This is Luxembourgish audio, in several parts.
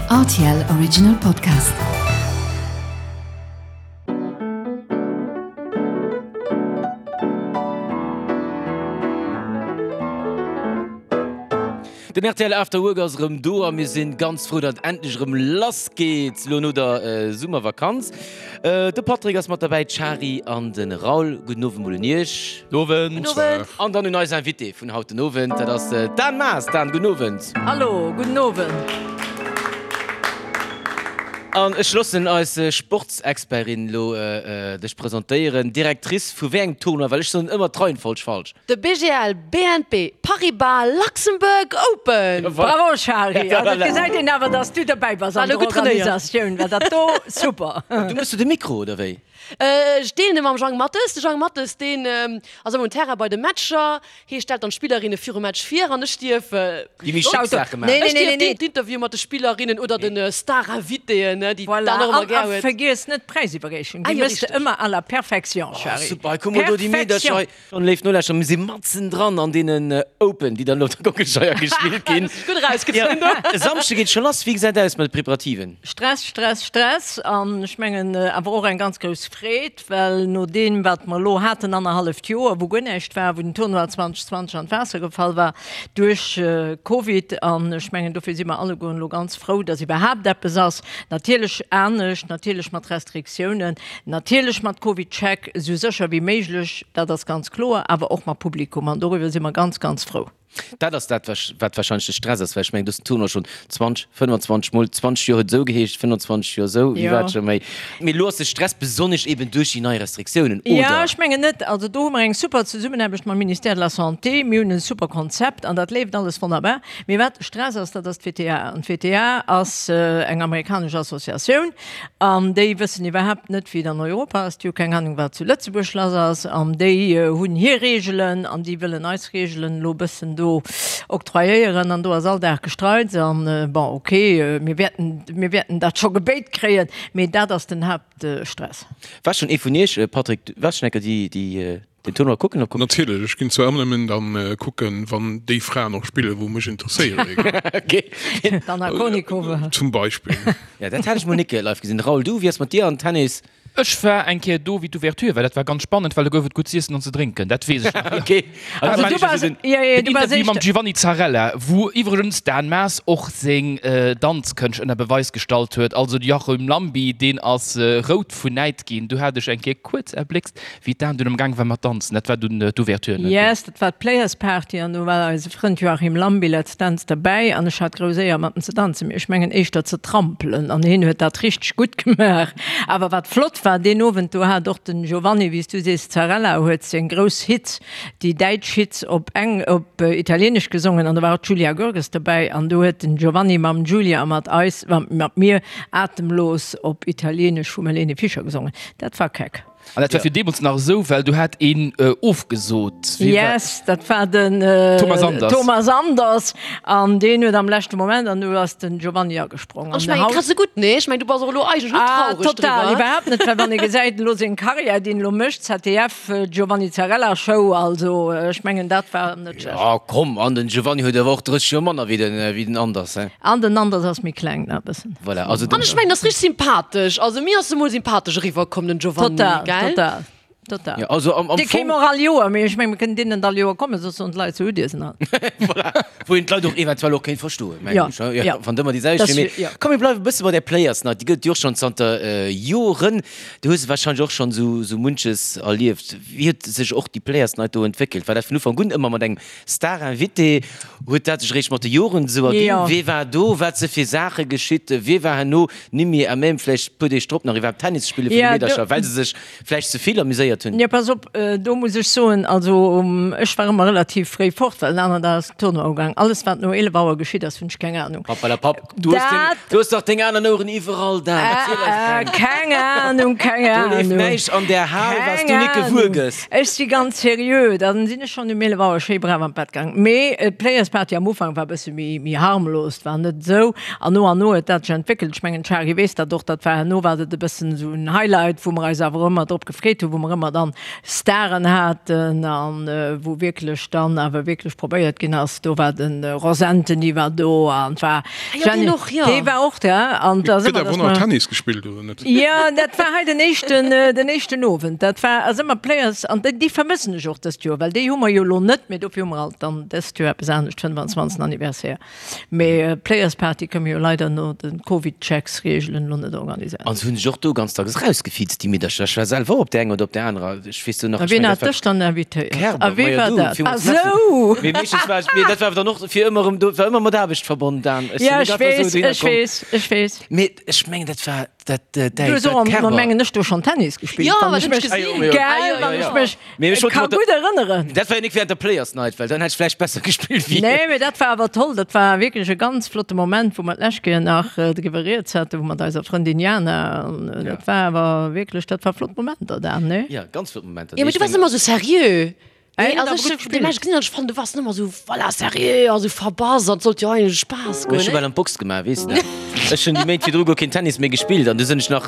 Rtl Original Podcast. Den rtl After Work ass erëm do a mir sinn ganz frou, datt et endlech erëm lass geet lo no der Summervakanz. De Patrick ass mat derbäi, d'Shari an de Raoul. Gudden Owend mol un iech. Gudden Owend. An dann un eis Invitée vun haut den Owend, dat ass d'Dan Maas. Dan, gudden Owend. Hallo, gudden Owend. An ech loossen eis Sportsexpertin lo dech presentéieren. Directrice vu wéi engem Tournoi? Well ech soen ëmmer d'Reihenfolg falsch. De BGL BNP Paribas Luxembourg Open! Bravo Shari, also et gesäit een awer dass du derbäi bass an der Organisatioun, well dat do super. Du mëss du de Mikro oder wéi? Ech deelen e mam Jang Mathes. De Jang Mathes deen ass ëmmer um Terrain bei de Matcher, hie stellt dann d'Spillerinne virum Match vir an ech dierf Déi méi schick Saache maachen. Ech dierf d'Interview mat de Spillerinnen oder de Star-Invitéen, déi d'Dan och ëmmer gär huet. A vergiess net d'Präisiwwerreechung, déi mëss de ëmmer à la perfection Shari. Super, hei komme do déi Meedercher hei. An léif Nolauschterer, mir si matzen dran an deenen Open, déi dann elo op der Kockelscheier gespillt ginn. Gutt erausgezunn do. E Samschde geet scho lass. Wéi gesäit aus mat de Preparativen? Stress, Stress, Stress an ech mengen awer och eng ganz grouss Freed, well no deem wat mer elo haten, annerhalleft Joer, wou guer näischt war, wou den Tournoi 2020 an d'Waasser gefall war duerch Covid an ech mengen dofir si mer allegueren elo ganz frou, datt iwwerhaapt eppes ass. Natierlech anescht, natierlech mat Restriktiounen, Natierlech mat CovidCheck, esou sécher wéi méiglech, dat ass ganz kloer, awer och mat Publikum an doriwwer si mer ganz, ganz frou. Dat ass dat, wat warscheinlech de Stress ass, well ech mengen, du hues den Tournoi schonn 20, 25 Mol, 20 Joer huet esou geheescht, 25 Joer esou, wéi war et scho méi. Mee elo ass de Stress besonnesch eben duerch déi nei Restriktiounen, oder? Jo, ech mengen net. Also do hu mer eng super Zesummenaarbecht mam Ministère de la Santé. Mir hunn e super Konzept an dat leeft alles wonnerbar. Mee wat de Stress ass, dat ass d'WTA. An d'WTA ass eng amerikanesch Associatioun. An déi wëssen iwwerhaapt net, wéi et an Europa ass. Déi hu keng Anung, wat zu Lëtzebuerg lass ass. An déi hunn hir Reegelen an déi wëllen eis Reegelen elo e bëssen do octroyéieren. An do ass all Dag Gestreits. An bon, ok, mir wäerten, mir wäerten dat scho gebéit kréien, mee dat ass den Haaptstress. War schonn ee vun Iech, Patrick, du waars schonn eng Kéier déi, déi den Tournoi kucken op. Natierlech, ech ginn zwar ëmmer nëmmen dann kucken, wann déi Fraen och spillen, wou mech interesséieren. Ok. D'Anna Kournikova. Zum Beispill. Ja, dat hat ech mol nik live gesinn. Raoul, du, wéi ass mat dir an Tennis? Ech war eng Kéier do, wéi d'Ouverture war. Dat war ganz spannend, well do gouf et gutt z'iessen an ze drénken. Dat weess ech nach. Ok. Also du waars, jo, jo, du waars éischter. Mam Giovanni Zarrella, wou iwwregens d'Dan Maas och seng Danzkënscht ënner Beweis gestallt huet. Also de Joachim Llambi, deen ass rout vun Näid ginn. Do hat ech eng Kéier kuerz erbléckst, Wéi d'Dan dunn am Gaang war mat danzen, dat war dunn d'Ouverture, net? Yes, dat war d'Players Party an do war eise Frënd Joachim Lambi, Let's Dance, derbäi an ech hat grouss Éier mat em ze danzen, mee ech mengen éischter ze trampelen an hien huet dat richteg gutt gemaach. Awer wat flott war deen Owend, do hat och den Giovanni, wéi s du sees, Zarella huet seng grouss Hits, déi däitsch Hits op eng op italienesch gesongen an do war och d'Julia Görges derbäi an do huet den Giovanni mam Giulia a mat eis, mat mir Atemlos op italienesch vum Helene Fischer gesongen. Dat war keck. An dat war fir deemools nach esou, well do hat een ofgesot. Yes, dat war den Thomas Anders. Thomas Anders an deen huet am leschte Moment an du ass den Giovanni agesprong. An ech mengen, kriss se gutt, nee? Ech mengen, du bass och elo eigentlech net traureg driwwer. Total, iwwerhaapt net, well wann ee gesäit elo seng Karriär, déi en elo mécht, ZDF, Giovanni Zarrella Show, also ech mengen, dat war net schlecht. Jo, komm, an den Giovanni huet awer och 30 Joer manner wéi den Anders, he? An den Anders ass méi kleng, nach e bëssen. Voilà, also An ech mengen, ass richteg sympathesch. Also mir ass e mol sympathesch eriwwer komm, den Giovanni, Total, gell? total, total. Ja, also am, am Dee kéim Fong, och all Joer, mee ech mengen, mir kënnen deen net all Joer kommen, soss soen d'Leit, sou hutt Dir se nach. voilà, wou een d'Leit och eventuell och kéint verstoen, mengen Ja, ech, ja, ja. wann et ëmmer déi selwecht Das, wier. Mee ja. komm, mir bleiwe e bësse bei där Players Night, déi gëtt et jo och schonn zanter Joren. Du hues warscheinlech och schonn esou, esou munches erlieft. Wéi huet sech och déi Players Night do entwéckelt? War dat vun Ufank un ëmmer mat engem Star-Invité, huet dat sech eréischt mat de Joren esou erginn? Jo. Wee war do? Wat si fir Saache geschitt? Wie war herno nimmi à même vläicht e puer Deeg drop nach iwwerhaapt Tennis spille vun de Ja, do. Meedercher, well se sech vläicht ze vill amuséiert hunn? Jo, pass op, do muss ech soen, also ech war ëmmer relativ fréi fort, well den aneren Dag ass den Tournoi ugaang. Alles wat no 11 Auer geschitt ass, hunn ech keng Anung. Pappalapapp, du hues deng, Dat. du hues dach deng aner Oueren iwwerall, Dan, erziel eis keng. Keng Anung, keng Do leeft Anung. näischt an där Hal, wat s Keng du nik gewuer Anung. gëss. Ech si ganz seriö, da sinn ech schonn um 11 Auer schéi brav an d'Bett gaang. Mee d'Players Party am Ufank war e bësse méi, méi harmlos, war net esou. An no an no huet dat sech entwéckelt. Ech mengen, d'Shari weess dat och, dat war herno war dat e bëssen esou en Highlight, wou mer eis awer ëmmer drop gefreet hunn, wou mer ëmmer. mer dann Staren haten an wou wierklech dann awer wierklech probéiert ginn ass, do war de Ross Antony war do an et war Jenny, dee war och da an da si mer, dass mer. Tennis gespillt oder net? Jo, dat war hei den éischten, den éischten Owend. Dat war ass ëmmer Players an déi vermëssen ech och dëst Joer, well déi hu mer jo elo net, mee dofir hu mer alt dann dëst Joer eppes anescht, 25. Anniversaire. Mee Players Party kënne mir jo leider no de Covid-Checks-Reegelen elo net organiséieren. An se hunn sech och do ganz dacks erausgefiizt, déi Meedercher. Ech war selwer och op där enger oder op där anerer. Ech weess do nach, A ech wien mengen, hat dat war dech dann invitéiert? Kerber, A wee majo war du, dat? villmools Ah Merci. sou! Mee meeschtens war ech, mee dat war awer dann och fir ëmmer erëm do, war ëmmer mat Aarbecht verbonnen, Dan. Ech sinn Ja, net ech einfach esou weess, dohinner ech komm. weess, ech weess. Mee ech mengen, dat war dat, däi, Du hues dat och, Kerber. mengen ech, do schonn Tennis gespillt, Jo, wann dat ech hunn ech mech, gesinn. Ah jo, gell, jo, wann jo. ech mech Mee ech wollt ka mat der- gutt erënneren. Dat war jo nik während der Players Night, well dann hätt ech vläicht besser gespillt wéi. Nee, mee dat war awer toll. Dat war wierklech e ganz flotte Moment, wou mer d'lescht Kéier nach driwwer rieds haten, wou mat eiser Frëndin Jana. An dat war awer wierklech, dat war flott Momenter dan, nee? Ja, ganz flott Momenter. Jo, mee du waars ëmmer sou seriö. Ey, Nee, also huet ech awer gutt hunn gespillt. Match gesinn an ech fannen, du waars ëmmer sou, voilà, seriö a sou verbass an et sollt jo eigentlech Spaass goen, Ech hu ne? bal an d'Box gemaach, weess de. Ech hunn déi Méint virdru guer keen Tennis méi gespillt an du sinn ech nach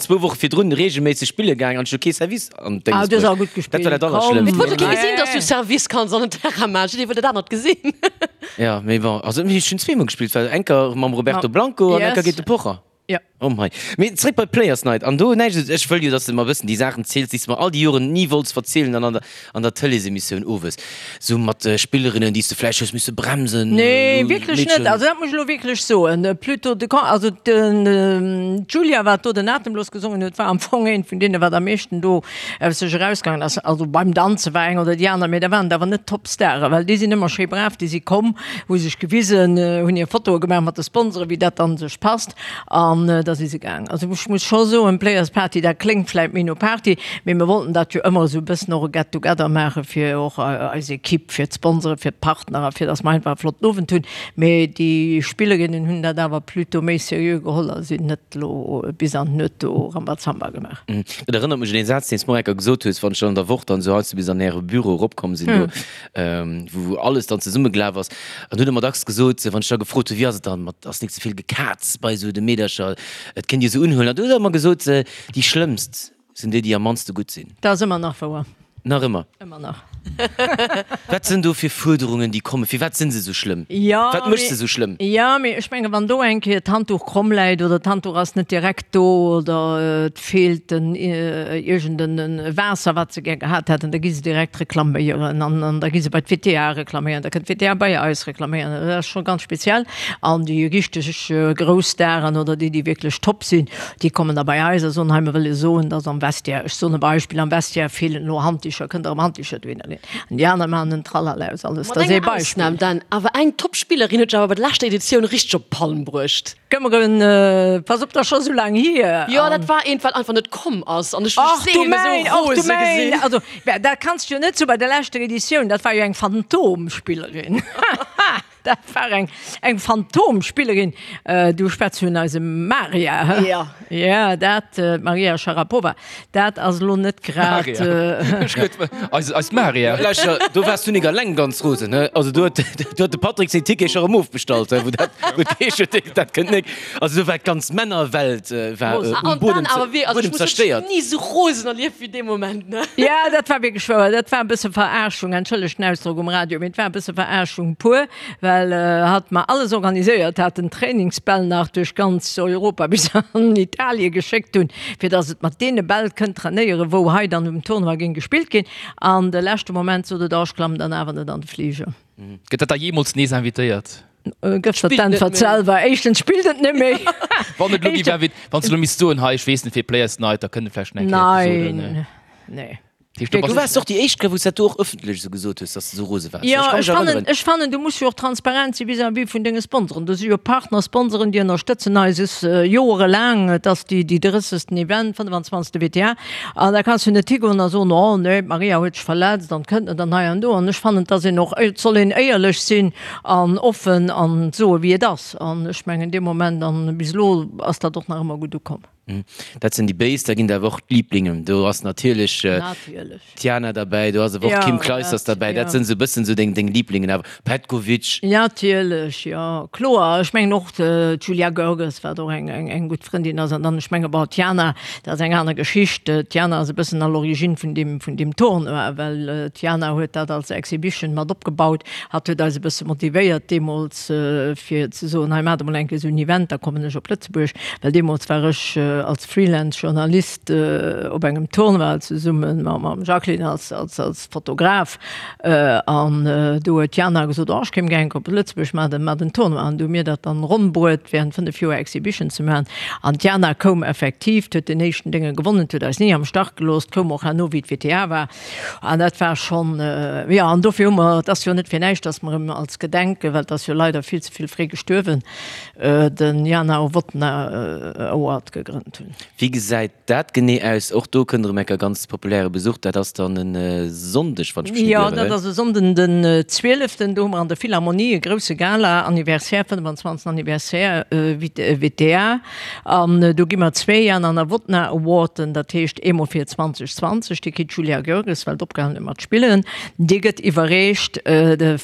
zwou Woche virdrun reegelméisseg spille gaang an ech hu kee Service an Ah, d'Dénges du hues bruecht. awer gutt Dat war gespillt, dat komm. Allerschlëmmst. Et wollt jo kee Nee. gesinn, dass du Service kanns an den Terrain maachen, jidderee wollt dat anert gesinn. Ja, mee bon, also ech hunn zweemol gespillt, well eng Kéier mam Roberto Blanco an eng Kéier Yes. géint de Pocher. Ja. Oh mei. Mee zréck bei d'Players Night. An do näischt, ech wëll jo, dass de mer e bëssen déi Saachen ziels, déi s de mer all déi Joren ni wollts verzielen an an der, an der Tëleesemissioun owes. Sou mat Spillerinnen, déi s de vläicht hues misse bremsen. Nee, elo wierklech net. Meedchen. Also dat muss ech elo wierklech soen. Plutôt de Con, also den, d'Julia, wat do den Atemlos gesongen huet, war am Fong eent vun deene, wat am meeschten do aus sech erausgaangen ass. Also beim Danze war eng oder déi aner, mee da waren et awer net d'Topstare, well déi sinn ëmmer schéi brav, déi si komm, hu sech gewisen, hunn hir Fotoe gemaach mat de Sponsoren, wéi dat dann sech passt. An da si se gaang. Also ech muss scho soen, Players Party, dat kléngt vläit méi no Party, mee mir wollten dat jo ëmmer esou e bëssen och e Get together maache fir och eis Ekipp, fir d'Sponsoren, fir d'Partner a fir datt mer einfach e flotten Owend hunn. Mee déi Spillerinnen hunn dat awer plutôt méi seriö geholl a sinn net elo bis an d'Nuet do Rambazamba gemaach. Dat erënnert mech un een Saz, deen s de mer enker gesot hues, wann ech dann an der Woch dann esou heiansdo bis an äre Büro eropkomm sinn do, wou alles dann zesummegelaf ass. An du huet ëmmer dacks gesot, wann ech da gefrot hunn, wéi ass et dann mat, ass nik ze vill Gekaz bei esou de Meedercher, et kënnt Dir se unhuelen. An du hues ëmmer gesot, déi schlëmmst sinn déi, déi am mannste gutt sinn. Dat ass ëmmer nach wouer. Nach ëmmer? Ëmmer nach. Wat sinn do fir Fuerderungen, déi kommen? Firwat sinn se esou schlëmm? Jo, Wat mécht se esou schlëmm? Jo, mee ech menge wann do eng Kéier d'Handduch kromm läit oder d'Handduch ass net direkt do oder et feelt en iergend en Waasser, wat se gär gehat hätten, da gi se direkt reklaméieren an an da gi se bei d'WTA reklaméieren, da kënnt d'WTA bei eis reklaméieren. Dat ass scho ganz speziell. An déi richteg grouss Staren oder déi, déi wierklech top sinn, déi kommen da bei eis a soen, hei mir wëlle soen, dass am Vestiaire, ech soen e Beispill, am Vestiaire feelen elo Handdicher, kënnt Der erëm Handdicher dohinner leeën? An déi aner maachen en Tralala aus alles. Mat Dat ass ee enger Beispill. Ausnam dann awer, eng Top-Spillerin huet sech awer bei der leschter Editioun richteg op d'Palm bruecht. Këmmeren, pass op, dat ass scho sou laang hier. Jo, dat war eent, wat einfach net komm ass an ech hu Ach du seelen esou mäin, ach du rose mäin, gesinn. also dat kanns du jo net soen, bei der leschter Editioun, dat war jo eng Phantomspillerin. Dat war eng eng Phantomspillerin. Du schwätz vun eisem Maria, hë? Jo. Ja, dat, d'Maria Sharapova, dat ass elo net grad. Maria. Ech huet eis eis Maria. Lauschter, do waars du nik alleng ganz rosen, hë? Also do huet do huet de Patrick seng Tickete scho erëm ofbestallt, hë, wou dat wou d'Heescht huet, dat kënnt nik. Also do war d'ganz Männerwelt war Rosen. um An Buedem dann awer wéi, also ech Buedem muss soen, ech zerstéiert. hunn ni esou rosen erlieft wéi dee Moment, ne? Ja, dat war wierklech wouer. Dat war e bësse Verarschung, entschëllegt den Ausdrock um Radio, mee et war e bësse Verarschung pur, well hatt mer alles organiséiert hat, den Trainingsbäll nach duerch ganz Europa bis an Italie geschéckt hunn, fir datt et mat deene Bäll kënnt trainéieren, wou hei dann um Tournoi géing gespillt ginn. An de leschte Moment sot et, oh, ech klammen dann awer net an de Fliger. Gëtt dat da jeemools nees invitéiert? Gëff der d'Äntwert selwer. Éischtens spillt et net méi. Wann et elo gi wär, wann s de elo misst soen, hei, ech weess net fir Players Night, da kënnt et vläicht nach eng Kéier eppes soen. Nein, nee. Du waars och déi éischt, wou s dat do och ëffentlech esou gesot hues, dass de esou rose waars. Jo, Ech ka mech ech fannen, erënneren. ech fannen, du muss jo och transparent si vis-à-vis vun denge Sponsoren. Do si jo Partner-Sponsoren, déi ënnerstëtzen eis joerelaang. Et ass déi, déi drëssegsten Event, 25. WTA. An da kanns du net higoen a soen, oh nee, d'Maria huet sech verletzt an kënnt net an hei an do. An ech fannen, dass een och, et soll een éierlech sinn an offen an soe wéi et ass. An ech mengen dee Moment, an bis elo ass dat och nach ëmmer gutt ukomm. Dat sinn déi Béis, da ginn et awer och d'Liiblingen. Do ass natierlech d'Jana derbäi, do ass awer och d'Kim Clijsters derbäi. Dat sinn esou e bëssen esou deng Liiblingen awer. Petkovic. Natierlech, jo, kloer. Ech mengen och d'Julia Görges, wat och eng gutt Frëndin ass. An dann, ech menge bon, d'Jana, dat ass eng aner Geschicht. D'Jana ass e bëssen à l'origine vun deem, vun deem Tournoi, well d'Jana huet dat als Exhibition mat opgebaut. Hatt huet eis e bësse motivéiert deemools, fir ze soen, hei maacht emol eng Kéier esou en Event, da kommen ech op Lëtzebuerg. Well deemools war ech als Freelance-Journalist op engem Tournoi zesumme mam Jacqueline als Fotograf. An do huet d'Jana gesot, oh ech kéim gär eng Kéier op Lëtzebuerg, maacht en Tournoi. An du hu mir dat dann ronn bruet, während 5 Joer Exhibition ze maachen. An d'Jana koum effektiv, huet den éischten Dénge gewonnen, huet eis ni am Stach gelooss, koum och herno wéi d'WTA war. An dat war schonn, jo, an dofir hu mer, et ass jo net fir näischt, datt mer em als Gedenken, well et ass jo leider vill ze vill fréi gestuerwen, den Jana Novotná Award gegrënnt hunn. Wéi gesäit dat genee aus? Och do kënnt erëm enker ganz populäre Besuch. Dat ass dann e Sonndeg, wann ech mech net ieren? Jo, dat ass e Sonnden den 12. Do hu mer an der Philharmonie e grousse Gala, Anniversaire, 25. Anniversaire WTA. An do gi mer zwee Jana Novotná Awarden, dat heescht eemol fir 2020, dee kritt d'Julia Görges, well d'opgehalen huet mat spillen. Dee gëtt iwwerreecht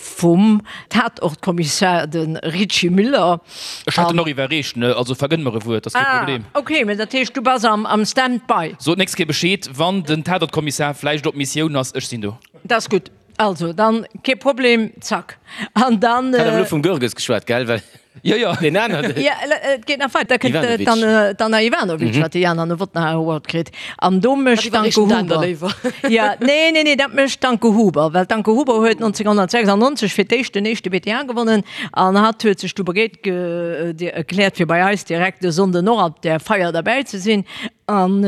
vum Tatortkommissar, de Richy Müller. Ech hätt en och iwwerreecht, ne? Also vergënn mer e Wuert, ass kee Problem. Ah, ok, mä dat heescht, du bass am Stand-by. Sot d'nächst Kéier Bescheed, wann den Tatortkommissar vläicht op Missioun ass, ech sinn do. Dat ass gutt. Also, dann kee Problem, zack. An dann. Hat awer elo vum Görges geschwat, gell? Well Jo, jo. deen aneren. Jo, et geet nach weider. Da kënnt Ivanovic. d'Anna, d'Anna Ivanovic, wat de Jana Novotná Award kritt. An do mécht Dat d'Anke iwwerreecht den Dan da Huber. léiwer. Jo, nee, nee, nee, dat mécht d'Anke Huber, well d'Anke Huber huet 1996 fir d'éischt den éischte WTA gewonnen an hatt huet sech du bereet ge, erkläert, fir bei eis direkt e Sonnden och op där Feier derbäi ze sinn. An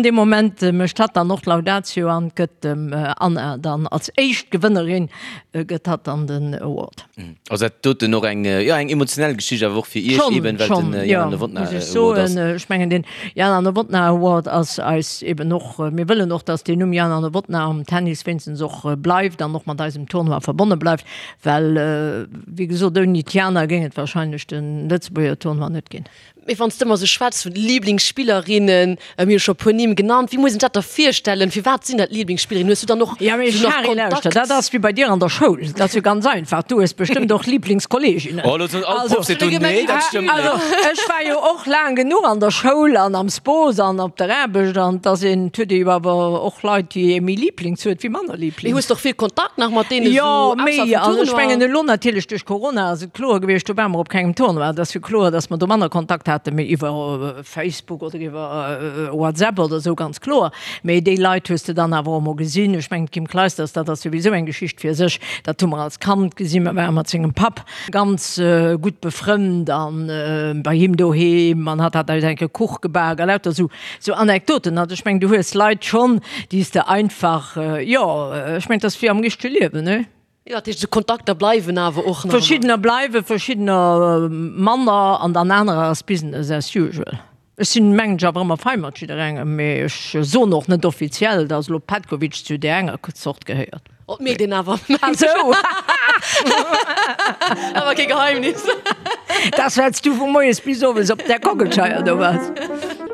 dee Moment mécht hatt dann och d'Laudatio an gëtt dem Anna dann als éischt Gewënnerin gëtt hatt dann den Award. Ass dat doten och eng, jo, eng emotionell Geschicht awer och fir Iech eben, well den Jana Novotná Schon, schon, jo, muss ech Award ass. soen. Ech mengen den Jana Novotná Award ass eis eben och, mir wëllen och, datt deen Numm Jana Novotná am Tennis wéinstens och bleift an och mat eisem Tournoi verbonne bleift, well wéi gesot ouni d'Jana géing et wahrscheinlech de Lëtzebuerger Tournoi net ginn. Mee wann s de ëmmer esou schwätz vun Liblingsspillerinnen, mir hu scho e puer Nimm genannt, wéi muss een sech dat da virstellen? Firwat sinn dat Liblingsspillerinnen? Hues du dann och Ja, mee esou nach Shari, lauschter, Kontakt? dat ass wéi bei dir an der Schoul, dat ass jo ganz einfach, du hues bestëmmt och Liblingskolleeginnen. Oh, elo soen all Also, d'Proff seet do, nee, dat stëmmt net. also ech war jo och laang genuch an der Schoul an am Spos an op der Aarbecht an et ass een, et huet ee jo awer och Leit, déi ee méi Lieblings huet wéi manner Mee Lieblings. hues de och vill Kontakt nach mat deene Jo, esou méi, ausserhalb vum also ech Tournoi? mengen elo natierlech duerch Corona ass et kloer gewiescht, do ware mer op kengem Tournoi, et ass jo kloer, datt mer do manner Kontakt haten, mee iwwer Facebook oder iwwer WhatsApp oder esou, ganz kloer. Mee déi Leit hues de dann awer och emol gesinn. Ech mengen, d'Kim Clijsters, dat ass souwisou eng Geschicht fir sech, dat hu mer als Kand gesinn, mer ware mat sengem Papp ganz gutt befrënnt an bei him doheem an hatt hat eis eng Kéier Kuch gebak a lauter esou esou Anekdoten. Also ech mengen, du hues Leit schonn, déi s de einfach, jo, ech mengen, et ass wéi am richtege Liewen, ne? Jo, dat heescht, esou Kontakter bleiwen awer och nach ëmmer. Verschiddener bleiwen, verschiddener manner an dann anerer ass Business as usual. Ech sinn, mengen ech, awer ëmmer fei mat jidderengem, mee ech soen och net offiziell, dass elo Petkovic zu där enger Zort gehéiert. Oh, et mierkt een awer, mengen Ah ech. sou! Awer kee Geheimnis. Dass well s du vu moies bis owes op där Kockelscheier do bass.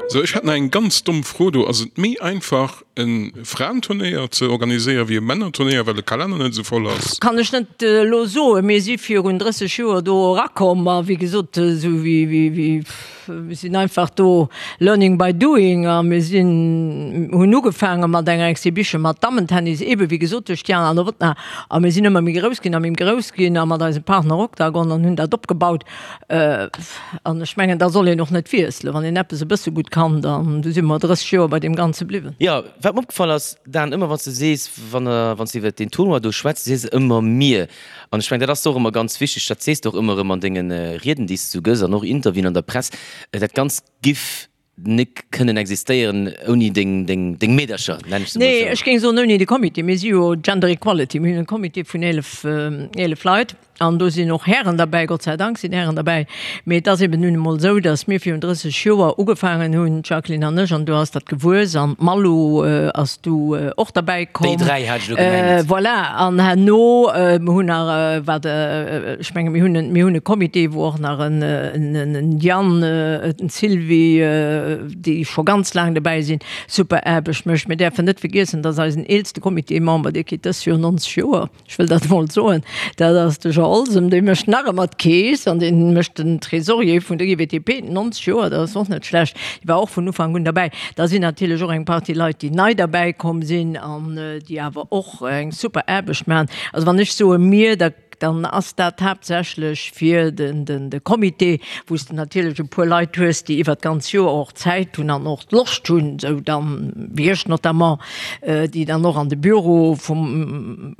Sou, ech hätt nach eng ganz domm Fro do. Ass et méi einfach e Fraenturnéier ze organiséieren wéi e Männerturnéier, well de Kalenner net esou voll ass? Kann ech net elo soen. Mir si virun 30 Joer do erakomm a wéi gesot, esou wéi, wéi, mir sinn einfach do learning by doing a mir sinn, hunn ugefaange mat enger Exhibition mat Dammentennis, eebe wéi gesot duerch d'Jana Novotná a mir sinn ëmmer méi grouss ginn a méi grouss ginn a mat eisem Partner Octagon an hunn dat opgebaut. An ech mengen, da soll een och net wiesselen. Wann een eppes e bësse gutt kann, dann, du si mer 30 Joer bei deem Ganze bliwwen. Jo, wat mer opgefall ass, Dan, ëmmer wann s de sees, wann wann s de iwwert deen Tournoi do schwätz, sees de ëmmer mir. An ech mengen, dat ass och ëmmer ganz wichteg, dat sees de och ëmmer erëm an denge Rieden, déi s de sou gëss an och Interviewen an der Press, dat Ganzt giff nik kënnen existéieren ouni deng, deng, deng Meedercher, nenn ech se mol Nee, esou. ech géing soen ouni de Comité. Mir si jo Gender Equality, mir hunn e Comité vun 11, 11 Leit. An do sinn och Hären derbäi, Gott sei Dank sinn Hären derbäi. Mee et ass eben nun emol esou, datt mir virun 30 Joer ugefaangen hunn, d'Jacqueline an ech, an du ass dat gewuess an d'Malou ass du och derbäi komm. Déi 3 hat ech elo gemengt. Voilà, an herno, mir hunn nach, wat, ech menge mir hunn, mir hunn e Comité, wou och nach en, en Yann, en Sylvie, déi scho ganz laang dobäi sinn, super Aarbecht mécht. Mir däerfen net vergiessen, datt eisen eelste Comitémember, dee kritt dës Joer 90 Joer. Ech wëll dat emol soen, dat ass de Jean Olsem, dee mécht nach ëmmer d'Keess an dee mécht den Trésorier vun der IWTP, 90 Joer, dat ass och net schlecht, dee war och vun Ufank un derbäi. Da sinn natierlech och eng Partie Leit, déi nei derbäi komm sinn an déi awer och eng super Aarbecht maachen. Also wann ech soe mir, da dann ass dat haaptsächlech fir de Comité, wou s de natierlech e puer Leit hues, déi iwwert d'ganz Joer och Zäit hunn an och d'Loscht hunn, esou dann wéi ech notamment, déi dann och an de Büro vum,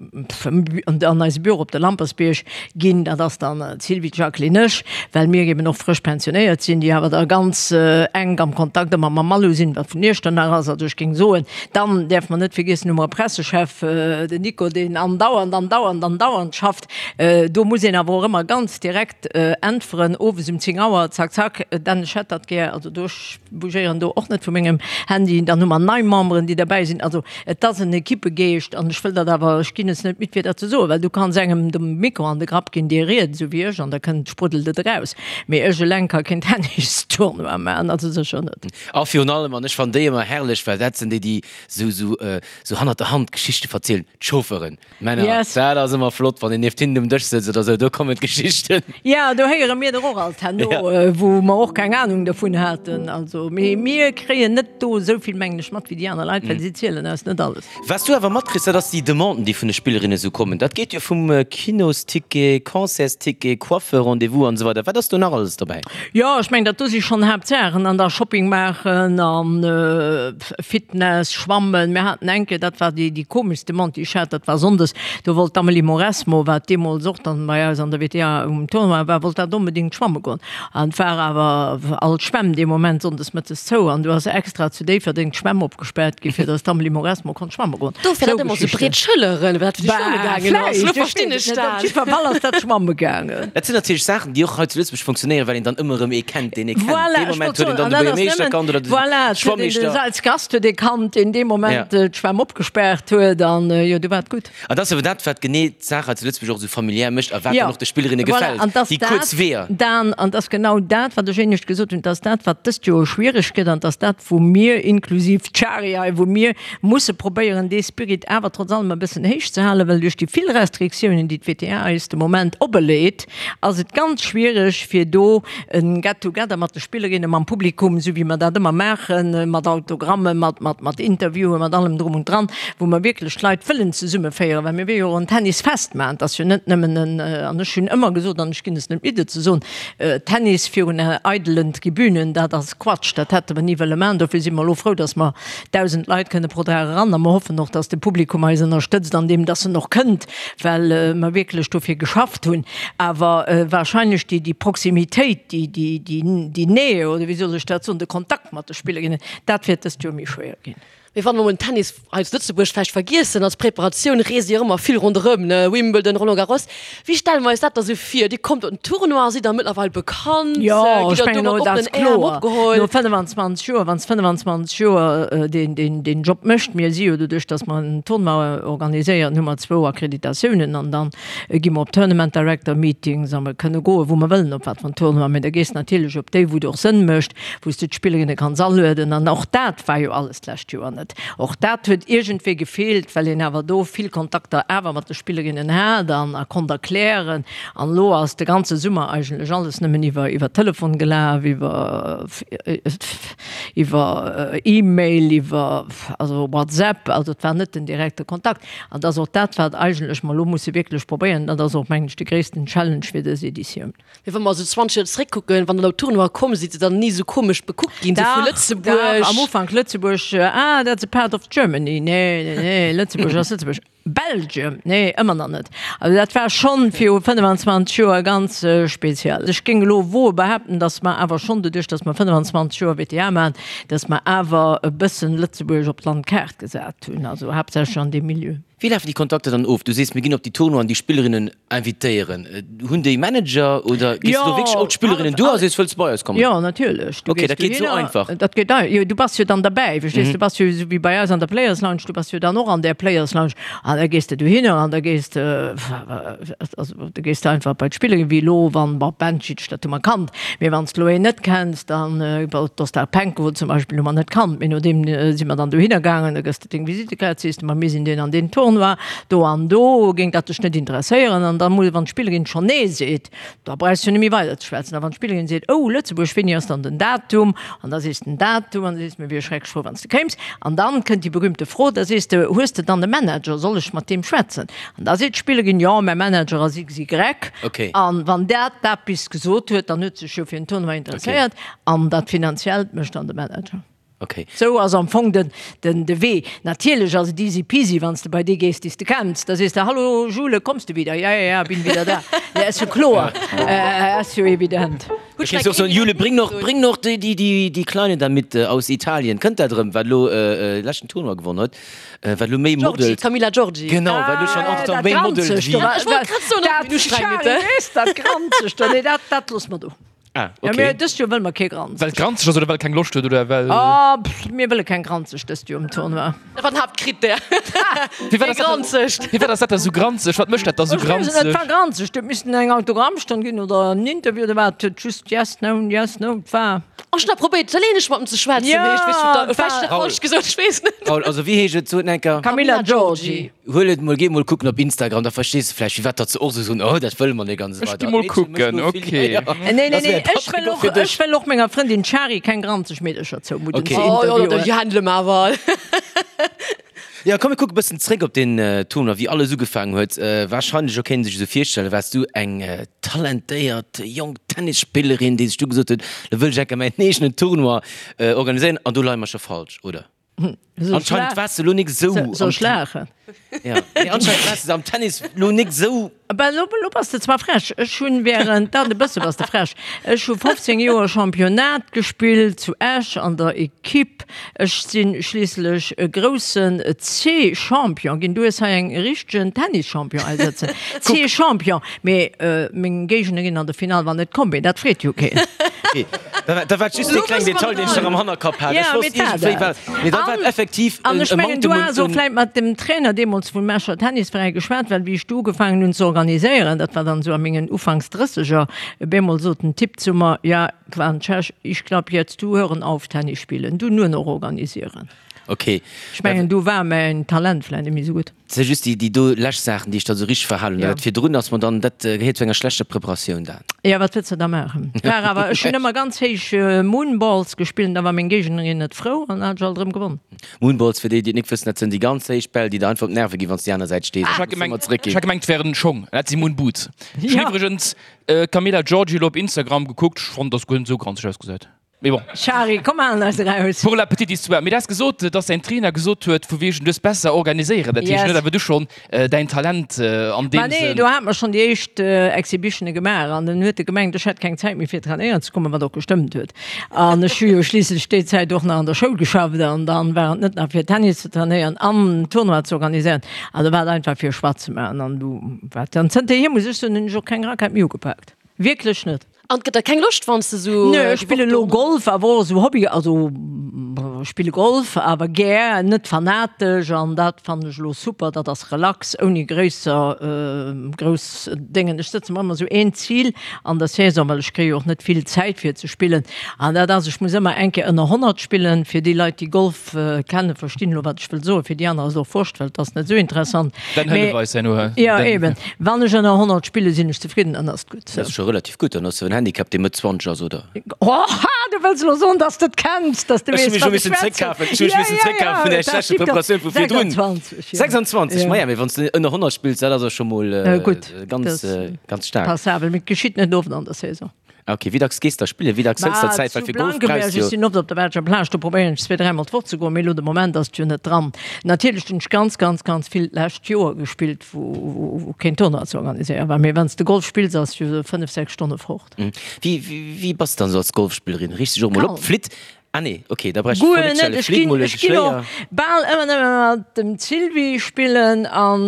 an eise Büro op de Lampersbierg ginn. Dat ass dann d'Sylvie, d'Jacqueline, ech, well mir eben och frësch pensionéiert sinn, déi awer da ganz enk am Kontakt ëmmer mam Malou sinn, wat vun Iechternach ass. Also ech géing soen, dann däerfe mer net vergiessen, hu mer e Pressechef, den Nico, deen andauernd, andauernd, andauernd schafft. Do muss een awer och ëmmer ganz direkt äntweren, owes um 10 Auer, zack, zack, Dan, ech hätt dat gär. Also do. Bougéieren do och net vu mengem Handy. Dann hu mer nei Memberen, déi derbäi sinn. Also et ass en Equippegeescht an ech wëll dat awer, ech ginn es net midd fir dat ze soen, well du kanns engem de Mikro an de Grapp ginn, dee riet esou wéi ech an da kënnt, spruddelt et eraus. Mee ech eleng ka keen Tennistournoi maachen, also sécher net. A virun allem, an ech fannen déi ëmmer herrlech, well dat sinn déi, déi esou, esou, esou hannert der Hand Geschichte verzielen, d'Chauffeuren. Männer, Yes. dat ass ëmmer flott, wann een nieft hinnen um Dësch sëtzt oder sou, do kommen d'Geschichten. Ja, do héiere mir der och alt herno, Ja. wou mer och keng Anung dervun haten. Also, mee mir kréien net do esou vill, mengen ech, mat wéi déi aner Leit, well si zielen eis net alles. Wat s du awer matkriss, dat ass déi Demanden, déi vun de Spillerinne sou kommen. Dat geet jo vum Kinosticket, Concertsticket, Coiffeur-Rendez-vous an esou weider. Wat ass do nach alles dobäi? Jo, ech mengen, dat do si schonn Haaptsaachen. An da Shopping maachen an Fitness, Schwammen. Mir haten eng Kéier, dat war déi, déi komeschst Demande, déi ech hat, dat war sonndes, do wollt d'Amelie Mauresmo, wat deemools och dann bei eis an der WTA um Tournoi war, wollt dat onbedéngt schwamme goen. An et war awer all d'Schwämm dee Moment sonndes mëttes zou an du ass extra zu Déifferdeng d'Schwämm opgespaart gi fir datt d'Amelie Mauresmo konnt schwamme goen. Dofir Sou hat ëmmer sou Geschichten. breet Schëlleren, well dat fir déi Schwamme Bah, gaangen ass. vläicht, Lo ech verstinn weess ech et net. Op dat. jiddwer Fall ass dat schwamme gaangen. Dat sinn natierlech Saachen, déi och hei zu Lëtzebuerg funktionéieren, well een dann ëmmer erëm ee kennt, deen ee kennt. Voilà, Dee ech Moment wollt huet een soen, dann an de dat ass Buergermeeschter nëmmen, kannt oder de voilà, et huet een de Schwammeeschter. als Gast huet ee kannt, deen dee Moment Ja. d'Schwämm opgespaart huet an jo, du war et gutt. An dat ass awer dat, wat genee d'Saach hei zu Lëtzebuerg och esou familiär mécht a wat Jo, dann och de Spillerinne voilà, gefält, an dass déi dat, kuerz Weeër. Dan, an dass genau dat, wat ech éinescht gesot hunn, dass dat, wat dëst Joer schwiereg gëtt an dass dat, wou mir, inklusiv d'Shari hei, wou mir musse probéieren, dee Spirit awer trotz allem e bëssen héich ze halen, well duerch déi vill Restriktiounen, déi d'WTA eis de Moment opeleet, ass et ganz schwiereg, fir do e Get-together mat de Spillerinnen, mam Publikum, esou wéi mer dat ëmmer maachen, mat Autogrammen, mat, mat, mat Interviewen, mat allem drum und dran, wou mer wierklech d'Leit wëllen zesummeféieren, well mir wëlle jo och en Tennisfest maachen. Et ass jo net nëmmen en, an ech hunn ëmmer gesot, an ech ginn es net midd et ze soen, Tennis virun eidelen Tribünen, dat ass Quatsch, dat hätte mer ni wëlle maachen. Dofir si mer elo frou, dass mer 1.000 Leit kënne pro Dag eran a mer hoffen och, dass de Publikum eis ënnerstëtzt an deem, dass en och kënnt, well mer wierklech dofir geschafft hunn. Awer wahrscheinlech déi, déi Proximitéit, déi, déi, déi, déi Nähe, oder wéi soll ech dat soen, de Kontakt mat de Spillerinnen, dat wäert dëst Joer méi schwéier ginn. Mee wann mer mol den Tennis hei zu Lëtzebuerg vläicht vergiessen, als Preparatioun reest Dir ëmmer vill ronderëm, ne, Wimbledon, Roland Garros. Wéi stelle mer eis dat da sou vir? Dir kommt op den Tournoi, sidd da mëttlerweil bekannt, Jo, gitt ech der do mengen, mat dat ass oppenen Äerm kloer. opgeholl? No 25 Joer, wann s 25 Joer deen, deen, deen Job mécht, mir si jo doduerch, datt mer en Tournoi organiséieren, hu mer zwou Akkreditatiounen an dann gi mer op Tournament Director Meetings a mer kënne goen, wou mer wëllen, op wat fir en Tournoi. Mee da gees natierlech op déi, wou et och Sënn mécht, wou s de d'Spillerinne kanns alueden. An och dat war jo alles d'lescht Joer net. Och dat huet iergendwéi gefeelt, well een awer do vill Kontakter awer mat de Spillerinnen hat an a konnt erklären. An elo ass de ganze Summer eigentlech alles nëmmen iwwer iwwer Telefon gelaf, iwwer iwwer E-Mail, iwwer also WhatsApp. Also et war net den direkte Kontakt. An dat ass och dat, wat eigentlech mer elo musse wierklech probéieren. Dat ass och, mengen ech, de gréissten Challenge fir dës Editioun. Mee wa mer esou 20 Joer zeréckkucken, wann der op Tournoie komm sidd, sidd der ni esou komesch bekuckt ginn, esou vu Lëtzebuerg? Dach, am Ufank Lëtzebuerg, ah, that's a part of Germany. Nee, nee, nee, Lëtzebuerg ass Lëtzebuerg. Belgium, nee, ëmmer nach net. Also dat war schonn viru 25 Joer ganz speziell. Ech géing elo woe behaapten, datt mer awer schonn, doduerch datt mer 25 Joer WTA maachen, datt mer awer e bëssen Lëtzebuerg op d'Landkaart gesat hunn, also haaptsächlech an deem Milieu. Wéi lafen déi Kontakter dann of? Du sees, mir ginn op déi Tournoien déi Spillerinnen invitéieren. Hunn déi Manager oder gees du do wierklech op d'Spillerinnen duer a sees, wëlls du bei eis kommen? Jo, natierlech. Du Okay, dat geet esou einfach. Dat geet ei, jo, du bass jo dann derbäi, verstees? Du bass jo esou wéi bei eis an der Players Lounge, du bass jo dann och an där Players Lounge an da gees de dohinner an da gees de, also da gees de einfach bei d'Spillerin, wéi elo wann, bon, Bencic, dat hu mer kannt, mee wann s de elo een net kenns, dann, d'Ostapenko zum Beispill hu mer net kannt, mee no deem si mer dann dohinner gaangen, da gëss de deng Visittekaart, sees de, ma mir sinn deen an deen Tournoi, do an do, géing dat dech net interesséieren? An da muss, wann d'Spillerin schonn Nee seet, da brauchs du net méi weider ze schwätzen. A wann d'Spillerin seet, Oh, Lëtzebuerg, wéini ass dann den Datum? An da sees de den Datum an da sees de, Mir wiere schrecklech frou, wann s de kéims. An dann kënnt déi berühmte Fro, da sees de, Hues de dann e Manager? Soll ech mat deem schwätzen? An da seet d'Spillerin, Jo, mäi Manager ass XY. An wann dat dat bis gesot huet, dann huet sech jo fir den Tournoi interesséiert. An dat Finanziellt mécht dann de Manager. Okay. Sou ass am Fong den, den, de Wee. Natierlech ass et easy peasy, wann s de bei dee gees, dee s de kenns. Da sees de, Hallo Jule, kommst du wieder? Ja, ja, ja, bin wieder da. Ja, ass jo kloer, ass jo evident. Da kéints de och soen, Jule, bring noch, bring noch déi, déi, déi, déi Kleine da mit aus Italien. Kënnt dat erëm, wat elo leschten Tournoi gewonnen huet, wat elo méi Giorgi, modelt. Camilla Giorgi. Genau, wat elo schonn Ah, entretemps dat méi modelt Granzegt wéi. do. Ech wollt grad soen, Dat, ob du streng Charly, bitte. weess, dat Granzegt do, nee, dat, dat loosse mer do. Ah, Ja, okay. mir, dëst Joer wëlle mer kee Granzeg. Well et granzeg ass oder well keng Loscht huet oder well. Ah, pff, mir wëlle keng Granzeg dëst Joer um Tournoi. Dat war den Haaptkrittär. Firwat Kee ass dat Granzegt. Firwat ass dat da sou granzeg? Wat mécht dat da sou Ech weess et net, et granzeg? war granzeg. Et missten eng Autogrammstonn ginn oder en Interview oder wat. Et huet just yes, no, yes, no. Et war. Ech hunn da probéiert italieenesch mat em ze schwätzen, mee ech weess net, Ja, et vläicht hunn ech dat war. falsch gesot, ech weess net. Raoul, also wéi heescht et? Sot en enker. Camilla Giorgi. Huel et mol, géi mol kucken op Instagram, da verstees de vläicht firwat datt se och sou soen, oh dat wëlle mer net an esou Ech weider. gi mol D'Meedche mécht kucken, elo vill, ok. ja, ja. Nee, nee, Dat nee, wär ech Patrick wëll och och, fir dech. ech wëll och menger Frëndin Shari keng granzeg Meedercher zoumudden Ok. ze Oh jo, interviewen. déi handele mer awer. Jo, komm mir kucke bëssen zréck op den Tournoi, wéi alles ugefaangen huet. Wahrscheinlech, och kéint een sech esou virstellen, waars du eng talentéiert jonk Tennisspillerin, déi sech du gesot huet, lo wëll ech enker mäin eegenen Tournoi organiséieren. An do leie mer scho falsch, oder? Anscheinend waars de lo nik esou. Soll ech laachen? Ja, mee anscheinend waars de am Tennis lo nik esou. Bah, lo, lo bass de zwar frech. Ech hunn während, dat e bësse bass de frech. Ech hu 15 Joer Championnat gespillt zu Esch an der Equipe. Ech si schliisslech e groussen C-Champion ginn. Du hues hei eng richtegen Tennis-Champion hei sëtzen. C-Champion. Mee meng Géignerin an der Finall war net komm, mee dat freet jo keen. Okay, dat war just dee kleng Detail, deen ech nach am Hannerkapp hat. Ech wosst iergendwéi war, mee dat war effektiv An ech mengen, du has och vläit mat dem Trainer deemools vum Escher Tennisveräi geschwat, well wéi ech do ugefaangen hunn ze organiséieren, dat war dann esou a mengen Ufanks Drësseger, op eemol sot den Typ zu mer, ja, war en Tschech, ich glaub jetzt, du hören auf Tennis spielen, du nur noch organisieren. Okay. Ech mengen, do war mäin Talent vläit net méi esou gutt. Et si just déi do lescht Saachen, déi ech da sou richteg verhalen hunn. Ja. Dat virdrun ass mer dann, dat gehéiert zu enger schlechter Preparatioun dan. Ja, wat wëlls de da maachen? War awer, ech hunn ëmmer ganz héich Moonballs gespillt an da war meng Géignerin net frou an da hat ech alt erëm gewonn. Moonballs, fir déi, déi et nik wëssen, dat sënn déi ganz héich Bäll, déi der einfach op d'Nerve ginn, wann s de déi aner Säit stees. Ech hat gemengt, ech hat gemengt, et wären Schong. Dat si Moonboots. Ech hunn Ja. iwwregens d'Camilla Giorgi elo op Instagram gekuckt. Ech fonnt, dass guer net sou granzeg ausgesäit. Mee bon. Shari, komm halen eis eraus. Pour la petite histoire, mee du has gesot, dass däin Trainer gesot huet, vu wegen du hues besser organiséieren, dat heescht Yes. net awer du schonn däin Talent an deem Ma nee, Sënn. do hate mer schonn déi éischt Exhibitione gemaach an dann huet e gemengt, ech hätt keng Zäit méi fir trainéieren ze kommen, wat och gestëmmt huet. An ech hu jo schliisslech déi Zäit och nach an der Schoul geschafft an dann war et net nach fir Tennis ze trainéieren an Tournoi ze organiséieren. Also war et einfach fir Choix ze maachen an du war et. An zënterhier muss ech soen, hunn ech och keng Rackett méi ugepaakt. Wierklech net. An et gëtt der keng Loscht wanns de sou. Nö, ech spille lo Golf, awer och esou Hobby, also ech spille Golf, awer gär, net fanatesch an dat fannen ech elo super, dat ass relax, ouni gréisser grouss Déngen. Ech sëtze mer ëmmer esou een Zil an der Saison, well ech kréie jo och net vill Zäit fir ze spillen an dat ass, ech muss ëmmer eng Kéier ënner 100 spillen. Fir déi Leit déi Golf kennen, verstinn elo wat ech wëll soen, fir déi aner ass et och wurscht, well et ass net esou interessant. Dann hëllef eis herno. Jo eben, wann ech ënner 100 spille sinn ech zefridden, dann ass et gutt. Dat ass scho relativ gutt, dann ass jo en Handicap, dee Mëtt 20 ass, oder? Oha, du wëlls elo soen, dass de et kenns, dass de Ech hu weess, mech scho wat ech missen schwätzen. zréckkafen, ech hu mech missen zréckkafen vun där schlechter Preparatioun vu virdrun. 26, jo. 26, maja, mee wann s de ënner 100 spills, dat ass jo scho mol Gutt, ganz, dat ganz staark. Passabel, mee et geschitt net oft an der Saison. Ok, wéi dacks gees de da spillen? Wéi dacks hëls der Zäit? Well Zu fir Golf brauchs Blankenberg, de jo. ech sinn oft op der belscher Plage, do probéieren ech zweedräimol d'Woch ze goen, mee elo de Moment ass et jo net dran. Natierlech hunn ech ganz, ganz, ganz vill d'lescht Joer gespillt, wou, wou keen Tournoi ze organiséieren war. Mee wann s de Golf spills, ass jo 5, 6 Stonne fort. Wéi, wéi bass de dann esou als Golfspillerin? Riichts dech och mol op, Kalm. flitt Ah nee, ok, da brauch ech d'Fro Guer net net, stellen. ech Flitt ginn, mol e ech ginn och Schléier. bal ëmmer nëmme mat dem Sylvie spillen an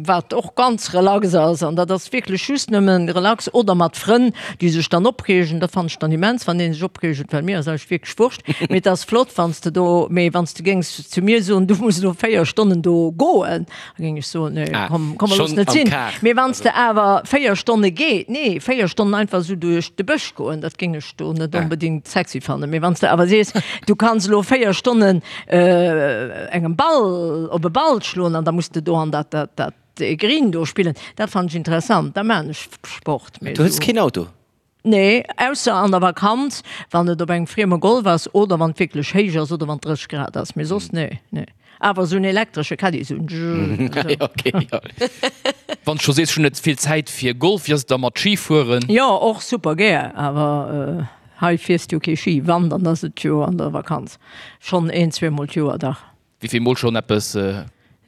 wat och ganz relax ass an dat ass wierklech just nëmmen relax oder mat Frënn, déi sech dann opreegen, dat fannen ech dann immens, wann ee sech opreegt, well mir ass eigentlech wierklech wurscht, mee et ass flott wann s de do, mee wann s de géings zu mir soen, du muss elo 4 Stonnen do goen, da géing ech soen, nee, Ah, komm, komm, looss schonn net am sinn. Kar. Mee wann s de awer 4 Stonne geet, nee, 4 Stonnen einfach esou duerch de Bësch goen, dat géing ech do net onbedingt sexy fannen. Mee wann s de awer sees, du kanns elo 4 Stonnen engem Ball op e Ball schloen an da muss de do an dat dat dat Green do spillen, dat fannen ech interessant, da maan ech Sport. Mee Du hues keen Auto? Nee, ausser an der Vakanz, wann et op engem frieme Golf ass oder wann et wierklech héich ass oder wann et 30 Grad ass. Mee soss nee, nee. Awer esou en elektresche Caddy, esou en Zzzz. Okay, jo. Wann s scho sees, ech hunn net vill Zäit fir Golf, wéi ass et da mat Skifueren? Jo, och super gär, awer hei fiers du jo kee Ski. Wann, dann ass et jo an der Vakanz, schonn een, zweemol d'Joer, dach. Wéi vill mol schonn eppes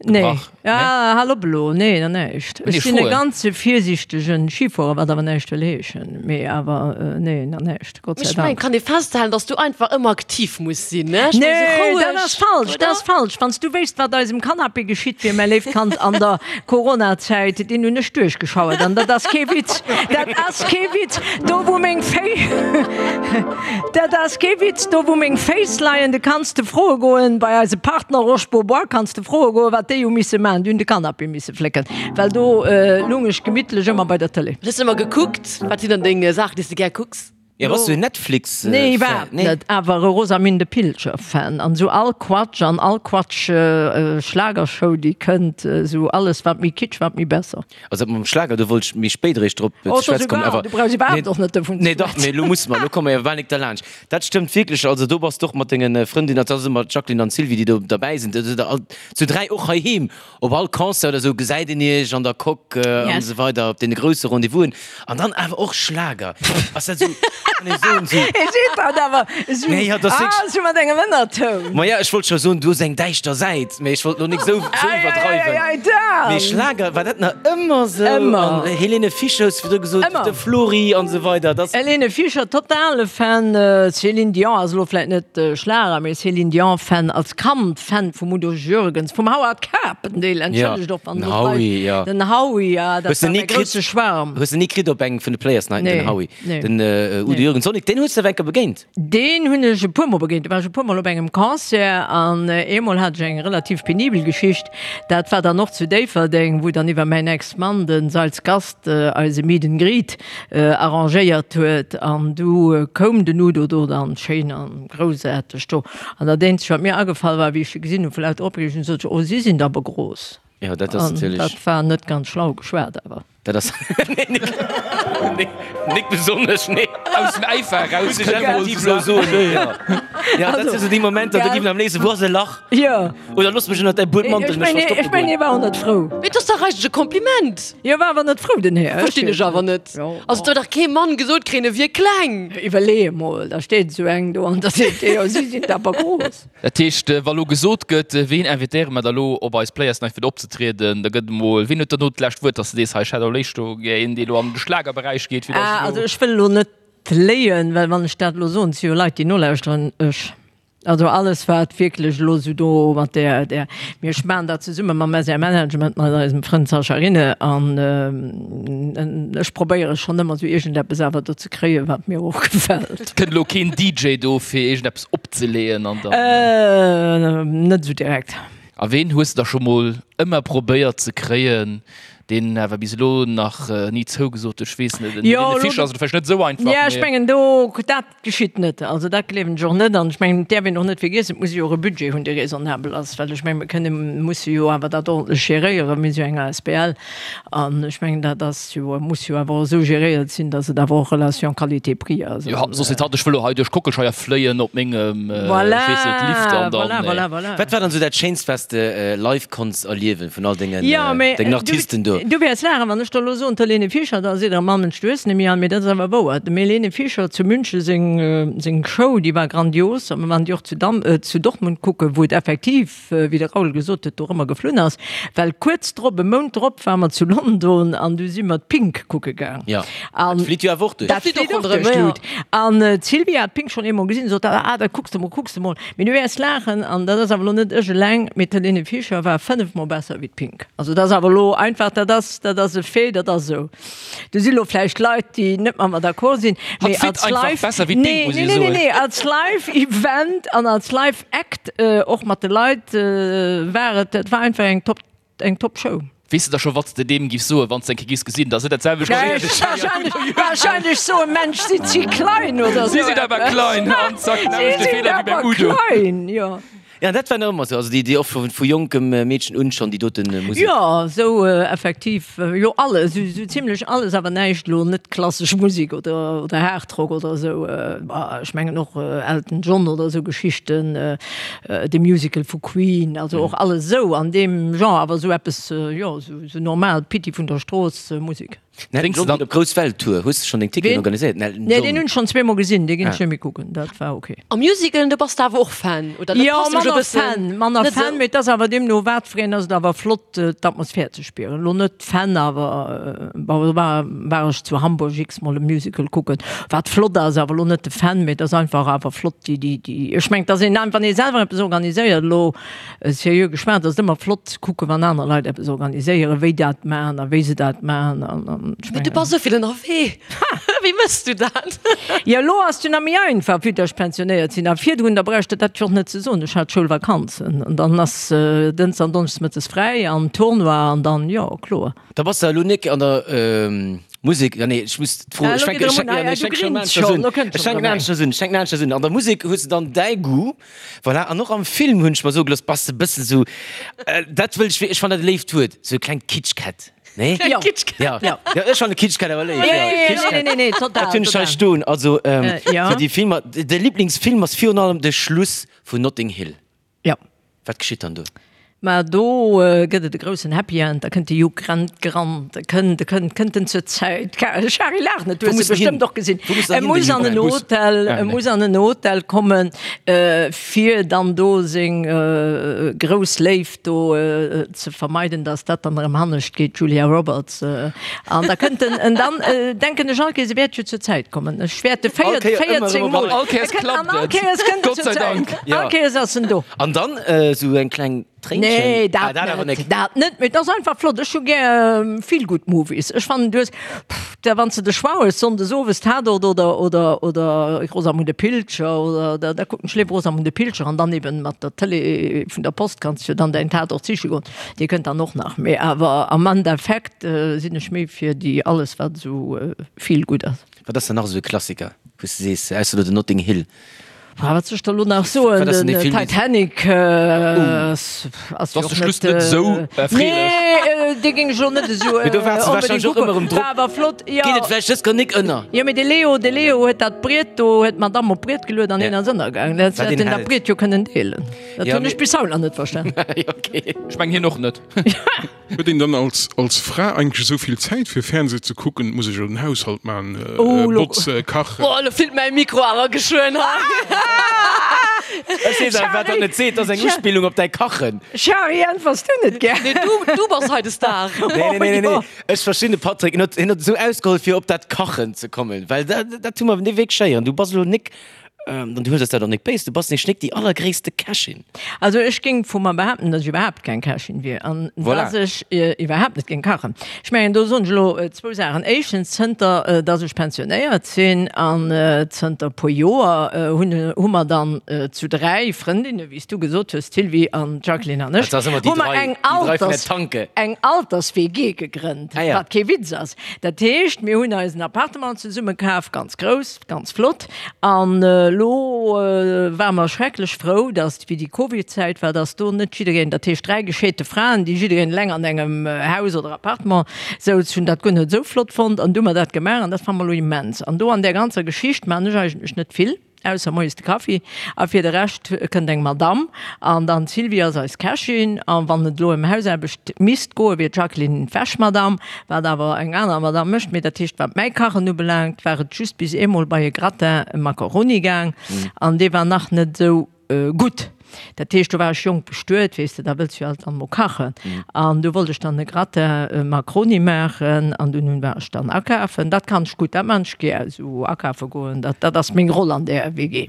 Nee, gebrach? ja, hal op elo, nee, na näischt. Nee, Ech sinn e froen. ganze virsiichtegen Schifuerer, wat awer näischt wëll heeschen, mee awer nee, na näischt, Gott sei Ech mengen, Dank. kann ee festhalen, dass du einfach ëmmer aktiv muss sinn, ne? Ech mengen, Nee, esou dat roueg, ass falsch, dat oder? ass falsch. Wann s du wéisst, wat eisem Canapé geschitt wier, mäi léift Kand, an der Coronazäit, deen hunn ech duerchgeschauert an dat ass kee Witz, dat ass kee Witz, do wou meng Féi, dat ass kee Witz, do wou meng Féiss leien, de kanns de froe goen, bei eise Partner Roche Bobois kanns de froe goen, wat déi hu misse maachen, déi hunn de Canapé misse flécken, well do lung ech gemittlech ëmmer bei der Tëlee. Hues de ëmmer gekuckt? Wat sinn dann deng Saachen, déi s de gär kucks? Jo, bass du en Netflix Nee, Fan? iwwerhaapt net, awer e Rosamünde Pilcher Fan an esou all Quatsch an all Quatsch Schlagershow déi kënnt, esou alles wat méi Kitsch wat méi besser. Also dat mam Schlager, do wollt ech méi spéit eréischt drop Oh, ze schwätze kommen, awer du brauchs iwwerhaapt och net dovun ze Nee dach, mee elo musse mer, elo komme mer jo bal nik derlaanscht. Dat stëmmt wierklech, also do bass de och mat denge Frëndinner, dat ass ëmmer d'Jacqueline an d'Sylvie déi do derbäi sinn, do sidd der all zu 3 och heiheem Op all Concert oder sou gesäit een iech an der Coque an esou weider op deene grousse Rendez-vousen. An dann awer och Schlager. Ass dat sou, kann ee soen, sou. Hie seet dat awer esou, Nee, ja, dat ass ah, wierklech. esou mat engem Ënnertoun. Ma ja, ech wollt scho soen, du hues eng däischter Säit, mee ech wollt lo nik sou, sou iwwerdreiwen. Ei, ei, ei, Dan! Mee Schlager, war dat nach ëmmer sou? Ëmmer. An Helene Fischer hues du virdru gesot, Ëmmer. de Flori an esou weider, dat. Helene Fischer, totale Fan. Céline Dion ass elo vläit net Schlager, mee Céline Dion Fan als Kand. Fan vum Udo Jürgens, vum Howard Carpendale, entschëllegt och wann den Howie, ja. Den Howie, ja, dat Hues de war ni mäi kritt, grousse Schwarm. hues de ni kritt op engem vun de Players Nighten, Nee, den Howie? nee. Den Udo Nee. Jürgens och nik, deen hues de awer eng Kéier begéint? Deen hunn ech e puer Mol begéint. Do war ech e puer Mol op engem Concert an eemol hat ech eng relativ penibel Geschicht. Dat war dann och zu Déifferdeng, wou dann iwwer mäin Ex-Mann, de Seils Gast, eise Meet and Greet arrangéiert huet an du koum den Udo do dann schéin an groussaarteg do. An dat eenzegt wat mir agefall war, wéi ech se gesinn hunn, vu lauter Opreegung, sot ech, oh si sinn der awer gros. Jo, dat ass An natierlech. dat war net ganz schlau geschwat awer. Dat ass, nee, nik, nee, nik besonnesch, nee. Aus dem Äifer eraus Muss ech effektiv elo soen, jo. Jo, dat si sou déi Momenter, do giff een am léifsten, wou ass e Lach? Jo. Oder looss mech ënnert däi Buedmantel Ech mech mengen, verstoppe ech mengen, goen. hie war och net frou. Mee et ass dach eigentlech e Kompliment. Hie war awer net frou, den Här. Verstinn ech awer net. Also et huet dach kee Mann gesot kréien, e wier kleng. Iwwerlee emol, da steet esou eng do an da seet dee, jo si sinn awer grouss. Dat heescht, wa lo gesot gëtt, ween invitéiere mer da lo op eis Players Night fir do opzetrieden, da gëtt emol, ween huet dann do d'lescht Wuert, dass de sees, hei ech hätt elo léischt do gär een, dee lo an de Schlagerberäich geet, fir dass Ah, ech also lo. ech wëll elo net léien, well wann ech dat elo soen, et si jo Leit, déi nolauschteren, ech. Also alles wat wierklech elo esou do mat där, där, mir ech maachen dat zesumme mam SR Management, mat eisem Frënd Sascha Rinne an ech probéiere schonn ëmmer esou iergendeppes awer do ze kréien, wat mir och gefält. Et kënnt elo keen DJ do fir iergendeppes opzeleeën an dann. Net esou direkt. A ween hues de da scho mol ëmmer probéiert ze kréien, deen awer bis elo nach ni zougesot huet? Ech weess net, en Jo, Helene elo, Fischer ass elo vläicht net esou einfach, jo ech mee. mengen do, dat Geschitt net. Also dat gleewen ech och net. An ech mengen, et däerf een och net vergiessen, et muss ee jo och e Budget hunn, dee raisonnabel ass. Well ech mengen, mir kënne musse jo awer dat ordentlech geréieren. Mir si jo eng asbl. An ech mengen, dat ass jo, muss jo awer och esou geréiert sinn, datt et awer och Relation qualité-prix ass. Jo, soss seet hatt, ech wëll elo hei duerch d'Kockelscheier fléien op mengem, ech weess net, Lift an dann. Voilà, voilà, voilà. Wat war dann esou dat Schéinst, wat s de live konns erliewen vun all dengen Jo, mee Artisten do? do. Du wäerts laachen, wann ech der elo soen, d'Helene Fischer, da seet der, Mann, Mensch, du hues net méi all. Mee dat ass awer wouer. Dem Helene Fischer zu München seng, seng Show, déi war grandios. A mir waren déi och zu Dam, zu Dortmund kucken, wou et effektiv, wéi de Raoul gesot huet, do erëmmer geflunn ass. Well kuerz drop, e Mount drop, ware mer zu London an du si mer d'Pink kucke gaang. Jo, dat flitt jo awer och duerch. Dat flitt och duerch d'Lut. An d'Sylvia hat d'Pink schonn eemol gesinn, sot, Ah, dat kucks de mol, kucks de mol. Mee du wäerts laachen, an dat ass awer elo net ech eleng, mee d'Helene Fischer war fënnefmol besser wéi d'Pink. Also dat ass awer elo einfach, dat ass, dat ass e Fait, dat ass esou. Do si lo vläicht Leit, déi net mat mer d'accord sinn, mee Hatt als flitt einfach Live, besser wéi d'Pink, nee, muss nee, ee nee, nee, soen. nee, als Live-Event an als Live-Act, och mat de Leit, war et, dat war einfach eng Top, eng Top-Show. Weess de da scho wat s de deem giffs soen, wann s de eng Kéier giffs gesinn, dass et dat selwecht ass? Wahrscheinlech, wahrscheinlech soen, Mensch, sinn si klein oder Si sou sinn awer eppes. klein an zack, den Si selwechte sinn Feeler wéi beim awer Udo. klein, jo. Ja, dat war nach ëmmer sou, also déi, déi och vu, vu jonkem Meedchen un schonn déi doten Musek. Jo, sou effektiv, jo alles, sou, sou zimlech alles, awer näischt elo net klassesch Musek oder, oder Hardrock oder sou. Bah, ech mengen och Elton John oder sou Geschichten, de Musical vu Queen, also och alles esou an deem Genre, awer esou eppes, jo, esou normal Pitti vun der Strooss Musek. Den Elton John geet op grouss Welttour. Hues de schonn deng Ticketen organiséiert? Den Elton Nee, John. deen hunn ech schonn zweemol gesinn, dee ginn ech net méi kucken, dat war ok. A Musicalen, do bass de awer och Fan, oder? Dat Jo, passt nämlech e manner bëssen Fan, manner net Fan, esou. mee et ass awer deemno wat fir een ass et awer flott d'Atmosphär ze spieren. Elo net Fan, awer bon, do war war ech zu Hamburg x-mol e Musical kucken, wat flott ass, awer elo net de Fan, mee et ass einfach awer flott déi déi déi ech mengen, et ass een wann ee selwer eppes organiséiert elo Seriö geschwat, ass et ëmmer flott ze kucken, wann aner Leit eppes organiséieren, wéi dat maachen a wéi se dat maachen. An, an ech Mee du mengen. bass esou vill ënnerwee. Wéi méchs du dat? Jo, elo ass et jo nach méi einfach, vue dass ech pensionéiert sinn. A virdrun, da brauch ech der dat jo och net ze soen, ech hat Schoulvakanzen an dann ass dënns an donneschdes mëttes fräi an Tournoi an dann, jo, kloer. Da bass de elo nik an der Musek, ja nee, ech muss d'Fro, Ah, ech elo fänken, geet ech erëm un, fänken, ah ja nee, ja, ech du fänken schon grins aneschters schonn, un, elo kënnt ech schonn fänken erëm eng. aneschters un, ech fänken aneschters un. An der Musek hues de dann däi Goût, voilà, an och am Film hunn ech mer soe gelooss, bass de bëssen esou, dat wëll ech, ech fannen dat e léift Wuert, esou e klengt Kitschkett, nee? Jo. Kitschkett. Ja, Ja. ja, ech fannen Kitschkett awer léif, Ja, ja, ja, ja, Kitschkett. nee, nee, nee, total, Dat hunn ech hei total. stoen, also, Ja. fir déi Filmer, de Liblingsfilm ass virun allem de Schluss vun Notting Hill. Ja. Wat geschitt dann do? Mä do gëtt et e groussen Happy End, da kënnt de Hugh Grant gerannt, e kënnt, e kënnt, kënnt en zur Zäit. Shari, laach net, du Wou hues muss e en hin? bestëmmt och gesinn. Wou muss en E hin, muss den an Hugh en Grant? Hotel, Ah, e nee. muss an en Hotel kommen, fir dann do seng grouss Léift do ze vermeiden, dass dat dann erëm hannescht geet, d'Julia Roberts. An da kënnt en, en dann denken ech all Kéiers, e wäert jo zur Zäit kommen. Ech wäerte All véier, Kéier ëmmer 14 erëm Mol. An all Kéiers E kënnt, an klappt all et. Kéiers kënnt en Gott zur sei Zäit. Dank. Ja. All Kéiers ass en do. An dann esou eng kleng Tréinchen. Nee, dat Ah, dat awer net, nek. dat net, mee et ass einfach flott. Ech hu gär Feel-Good Movies. Ech fannen, du hues, pff, da wann s de de Choix hues, sonndes owes Tatort oder, oder, oder Rosamunde Pilcher oder, da, da kucken ech léiwer Rosamunde Pilcher an dann eben mat der Tëlee vun der Post kanns du jo dann däin Tatort siche goen. Dee kënnt dann och nach. Mee awer am Endeffekt sinn ech méi fir déi alles wat esou Feel-Good ass. Wat ass dann nach esou e Klassiker, wou s de sees, ausser elo den Notting Hill? Ah, wat soll ech der elo nach soen? Wat ass denn Den dee Film? Titanic ass jo Ass och de Schluss net net esou erfreelech? Nee, dee géing ech elo net esou Mee do waart se onbedéngt wahrscheinlech och kucken. ëmmer erëm drop. War awer flott, jo. Geet et vläicht dës Kéier nik ënner? Jo, mee de Leo, de Leo huet dat Briet do, huet d'Madame op d'Briet geluet an hien ass ënnergaangen. Dat Wat hätt een en dat Held. Briet jo kënnen deelen. Dat Ja, hunn mee. ech bis haut nach net verstan. Okay. Ech mengen hien och net. Huet een dann als als Fra eigentlech esou vill Zäit fir Fernseh ze kucken? Muss ech jo den Haushalt man, Oh, lo. botze, kachen. Boah, lo flitt mäi Mikro awer geschwënn hei. Ech weess awer wat dat net seet, dat ass eng Uspillung op däi Kachen. Shari, äntwers du net gär? Nee, du, du bass hei de Star. Nee, nee, nee, nee, nee. Ech verstinn de Patrick, hien huet, hien huet esou ausgeholl fir op dat Kachen ze kommen, well dat, dat hu mer net wierklech héieren. Du bass elo nik An du hues eis dat och nik béis, du bass nämlech nik déi allergréisste Kächin. Also ech géing vu mer behaapten, datt ech iwwerhaapt keng Kächin wier an Voilà. datt ech iwwerhaapt net géing kachen. Ech mengen, do soen ech elo zwou Saachen. Éischtens, zënter datt ech pensionéiert sinn an zënter e puer Joer hunn hu mer dann zu dräi Frëndinne, wéi s du gesot hues, d'Sylvie an d'Jacqueline an ech, Dat ass ëmmer déi hu mer dräi, eng déi dräi vun der Alters, Tanke. eng Alters-WG gegrënnt, Ah ja. wat kee Witz ass. Dat heescht, mir hunn eis en Appartement zesumme kaf, ganz grouss, ganz flott. An elo ware mer schrecklech frou, datt, wéi déi Covid-Zäit war, datt do net jiddereen, dat heescht 3 gescheete Fraen, déi jiddereen eleng an engem Haus oder Appartement souz, hunn dat guer net esou flott fonnt. An du hu mer dat gemaach an dat fanne mer elo immens. An do an där ganzer Geschicht maachen ech eigentlech net vill. ausser moies de Kaffi. A fir de Rescht kënnt eng Madamm an dann d'Sylvie ass eis Kächin. A wann et elo ëm Hausaarbecht misst goen, wier d'Jacqueline d'Wäschmadamm, wat awer eng aner Madamm mécht. Mee dat heescht, wat mäi Kachen ubelaangt, war et just bis eemol bei e Gratin Macaroni gaang an dee war nach net esou Gutt, dat heescht, do war ech jonk bestuet, weess de, da wëlls jo alt dann emol kachen. An du wollt ech dann e Gratin Macaroni maachen an dunn hunn war ech dann akafen. Dat kann ech gutt, dat maan ech gär, esou akafe goen, dat dat ass meng Roll an där WG.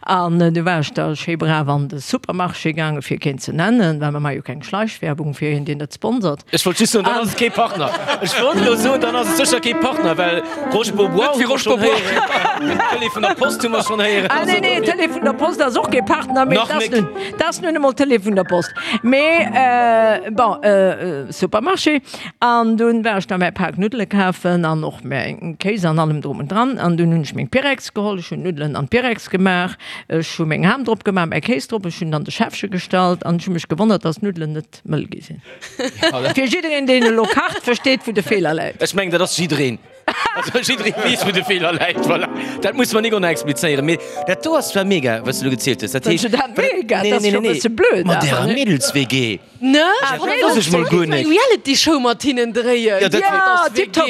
An du war ech da schéi brav an de Supermarché gaangen, fir keen ze nennen, well mer maache jo keng Schleichwerbung fir een, deen net sponsert. Ech wollt just soen, dann ass et kee Partner. Ech wollt elo soen, dann ass et sécher kee Partner, well Roche Bobois hu mer schonn héieren, Télé vun der Post hu mer schonn héieren. Ah nee, nee, Télé vun der Post ass och kee Partner, mee Nach dat nik. ass nun emol Télé vun der Post. Mee bon, Supermarché, an dunn war ech da mäi Pak Nuddele kafen an och mäin Kéis an allem drum und dran. An dunn hunn ech meng Pyrex geholl, ech hunn d'Nuddelen an d'Pyrex gemaach, ech hu meng Ham drop gemaach, mäi Kéis drop, ech hunn an de Schäffche gestallt an ech hu mech gewonnert, dass d'Nuddelen net mëll gi sinn. Fir jiddereen, deen elo kacht, versteet, wou de Feeler läit. Ech mengen, dat ass jiddereen. Also jidderee weess, wou de Feeler läit. Voilà. Dat muss mer nik och nach explizéieren. Mee dat do ass zwar mega, wat s du elo gezielt hues. Dat heescht. Fënns du dat mega? Dat ass jo e bësse blöd Mat ärer awer, ne? Mädels-WG. Ne? Dat wosst ech mol guer nik. Eng Reality-Show mat hinnen dréien. Ja, dat wär. Ja, tiptop.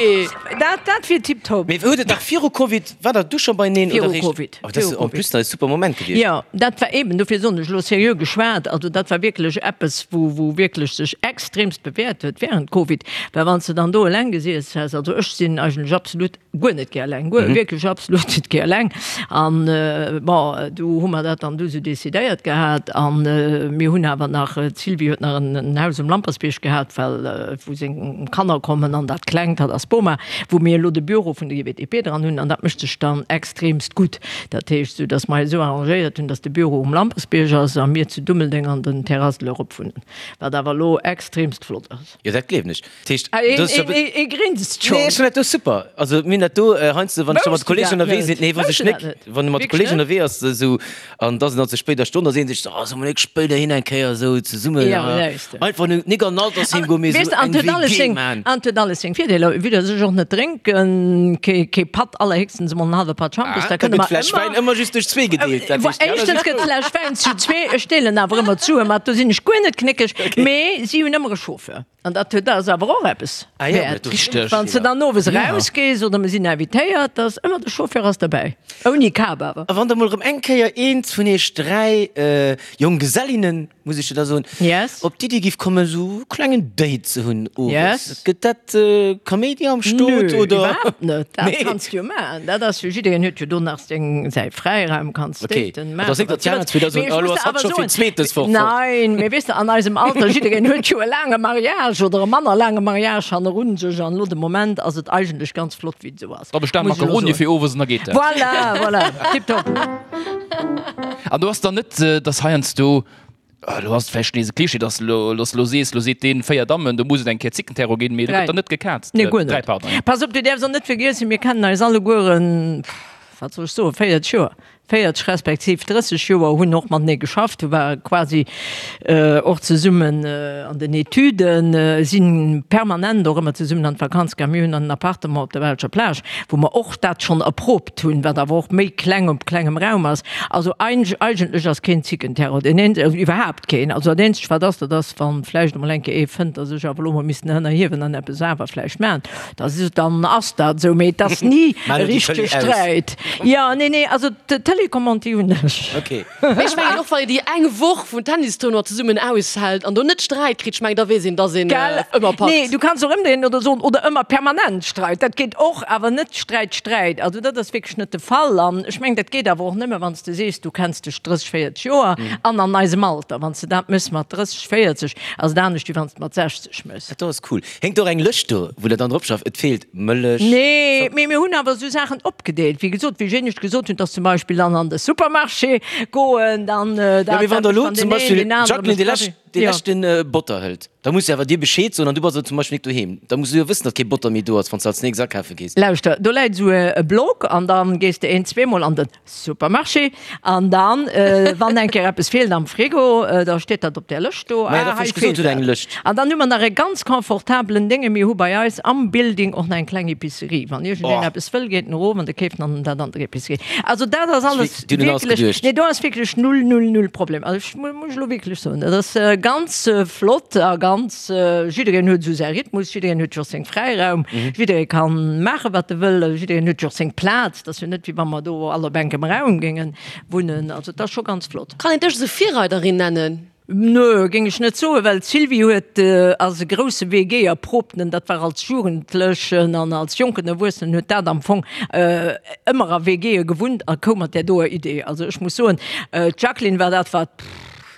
Dat, dat wier tiptop. Mee huet et nach viru Covid, war der du scho beineen Viru oder réischt? Covid. Oh, dat ass en plus nach e super Moment gewiescht. Jo, dat war eben, dofir soen ech elo seriö geschwat, also dat war wierklech eppes, wou, wou wierklech sech extremst bewäert huet während Covid, well wann s de dann do eleng gesiess häss, also ech sinn eigentlech absolut guer net gär eleng, guer, wierklech absolut net gär eleng an bon, du hu mer dat dann du esou decidéiert gehat an mir hunn awer nach, d'Sylvie huet nach en Haus um Lampersbierg gehat, well wou seng Kanner kommen an dat Klengt, dat ass d'Boma, wou mir elo de Büro vun der GWTP dran hunn an dat mécht sech dann extremst gutt. Dat heescht, esou datt mer eis esou arrangéiert hunn, datt de Büro um Lampersbierg ass a mir zu Dummeldeng an den Terrasse de l'Europe wunnen, wat awer elo extremst flott ass. Jo, dat gleewen ech. Dat heescht, Ah, do ass jo. Ee grinst schonn. Nee, ech fannen dat do super. Also mir hunn dat do heiansdo, wann ech da mat Wousst du Kolleegen dat ënnerwee net? sinn, nee, wousst Wousst ech du dat nik, net? wann e mat Wierklech Kolleegen net? ënnerwee ass esou an da ass et nach ze spéider Stonn, da seet een sech esou, oh, solle mer nik spéider hin eng Kéier esou zesummen Ja, läis de. einfach nik an den Altersheem goen, mee Weess esou de, an eng et huet alles WG seng, man. an et huet alles seng Virdeeler, vue dass ech och net drénken, kee, kee Patt, allerhéchstens emol en hallwe Patt Schampes, Ah, da da kënne gëtt mer d'Fläsch ëmmer. Wäin ëmmer just duerch zwee gedeelt, dat heescht, Éischtens gëtt d'Fläsch Wäin zu zwee, ech deelen awer ëmmer d'Sue mat, do sinn ech guer net knéckeg, mee si hunn ëmmer e Chauffeur. An dat huet ass awer och eppes wäert. Wann s de dann owes erausgees oder mir sinn invitéiert, da ass ëmmer de Chauffeur ass derbäi. Ouni Kap awer. A wann da mol erëm eng Kéier eent vun iech 3 Jonggesellinnen, muss ech jo da soen, op d'Iddi giff kommen, esou e klengen Date ze hunn owes, gëtt dat Kaméidi am Stot Nö, oder? iwwerhaapt net. Dat kanns de jo maachen. Dat ass jo, jiddereen huet jo do nach seng, säi Fräiraum, kanns daten, maachen, wat s de wëlls. Mee ech muss der awer soen, Nein, mee weess de, an eisem Alter, jiddereen huet jo e laange Mariage oder e manner laange Mariage hannerun sech an elo de Moment ass et eigentlech ganz flott, wéi et esou ass. Da bestell Muss ech elo Macaroni soen. fir owes an da geet dat. Voilà, voilà, tiptop. An do ass dann net, dass heiansdo Elo ass et vläicht nees e Klischee, dass elo, dass elo sees, elo seet deen 4 Dammen, do muss et eng Kéier Zickenterror ginn, mee do gëtt dann net gekaazt. Nee, guer 3, net. pardon. Pass op, du däerfs och net vergiessen, mir kennen eis allegueren, wat soll ech soen, 40 Joer, 40 respektiv 30 Joer, hunn och matenee geschafft, hu ware quasi och zesummen an den Etüden, si permanent och ëmmer zesummen an d'Vakanz gaangen. Mir hunn an en Appartement op der belscher Plage, wou mer och dat schonn erprobt hunn, wat awer och méi kleng op klengem Raum ass. Also eigentlech ass keen Zickenterror, deen een, also iwwerhaapt keen. Also dat eenzegt wat ass, dat ass wann vläicht emol eng Kéier ee fënnt, datt ech awer elo mol missten ënnerhiewen an eppes awer vläicht maachen, da dann ass dat esou, mee et ass ni e richtege Sträit. Jo, nee, nee, also d'Telecommande déi hunn ech. Mee ech mengen och, wann een déi eng Woch vum Tennistournoi zesummen aushält an do net Sträit kritt, ech mengen, da weess een, dass een ëmmer packt. Nee, du kanns och ëmdréinen oder soen, oder ëmmer permanent Streit, dat geet och, awer net Sträit, Sträit. Also dat ass wierklech net de Fall. An ech mengen, dat geet awer och nëmme, wann s de sees, du kenns dech 30, 40 Joer an an eisem Alter. Wann s de dat méchs mat 30, 40, ass et anescht, wéi wann s de mat 60 méchs. Dat do ass cool. Héngt och eng Lëscht do, wou der dann drop schafft, et feelt Mëllech, Nee, mee mir hunn awer esou Saachen opgedeelt. Wéi gesot, wéi ech éinescht gesot hunn, dass zum Beispill dann an de Supermarché goen, dann dat, Ja, mee wann dat der mécht elo dann zum deen een, Beispill, deen anere Jacqueline, mécht déi de lescht Café. Dee leschten Botter hëlt, da muss se awer dir Bescheed soen an du bass elo zum Beispill nik doheem. Da muss du jo wëssen, datt kee Botter méi do ass, wann s de als nächst akafe gees. Lauschter, do läit esou e Block an da gees de een, zweemol an de Supermarché an dann, wann eng Kéier eppes feelt am Frigo, da steet dat op där Lëscht do. Maja, dat hunn ech gesot, huet eng Lëscht. An dann hu mer nach e ganz confortabelen Dénge, mir hu bei eis am Building och nach eng kleng Epicerie. Wann iergendeen eppes wëll, geet en erof an de keeft dann dat an der Epicerie. Also dat ass alles wierklech, nee, do ass wierklech null, null, null Problem. Also ech Muss ech elo wierklech soen. Dat ass ganz flott a ganz, jiddereen huet esou säi Rhythmus, jiddereen huet jo och seng Fräiraum, jidderee ka maache wat e wëll, jiddereen huet jo och seng Plaz. Et ass jo net wéi wa mer do all op enkem Raum géinge wunnen. Also et ass scho ganz flott. Kann een dech esou Virreiderin nennen? Nö, géing ech net soen, well d'Sylvie huet, ass e grousse WG-Erprobten, dat war als Jugendlechen an als jonken Erwuessenen huet dat am Fong ëmmer a WGe gewunnt a koum mat där doer Idee. Also ech muss soen, d'Jacqueline war dat, wat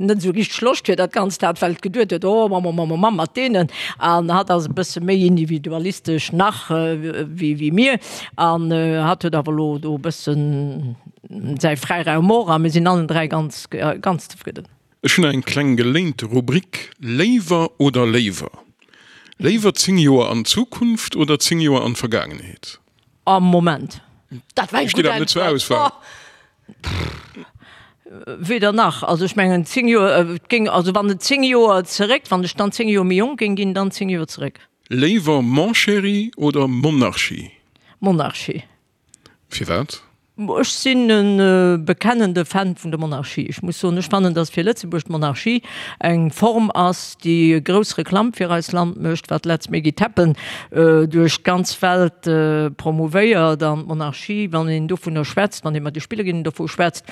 net esou richteg Loscht fir dat Ganzt hat, well et geduet huet, oh Mamm, Mamm, Mamm, mat deenen. An hatt ass e bësse méi individualistesch nach wéi wéi mir. An hatt huet awer elo do e bëssen säi Fräiraum och a mir sinn allen 3 ganz, ganz zefridden. Ech hunn eng kleng geléinte Rubrik, Léiwer oder léiwer? Léiwer 10 Joer an d'Zukunft oder 10 Joer an d'Vergaangenheet? Am Moment. Dat war eng Steet gutt awer net zur Äntwert. Auswahl. Weder nach. Also ech mengen 10 Joer, et géing, also wann et 10 Joer zeréck, wann ech dann 10 Joer méi jonk géing ginn, dann 10 Joer zeréck. Léiwer Mon chéri oder Monarchie? Monarchie. Firwat? Ech sinn e bekennende Fan vun der Monarchie. Ech muss soen, ech fannen, datt fir Lëtzebuerg d'Monarchie eng Form ass, déi grouss Reklamm fir eist Land mécht, wat Let's make it happen duerch d'ganz Welt promouvéiert. An d'Monarchie, wann een dovunner schwätzt, wann ee mat de Spillerinnen dovu schwätzt,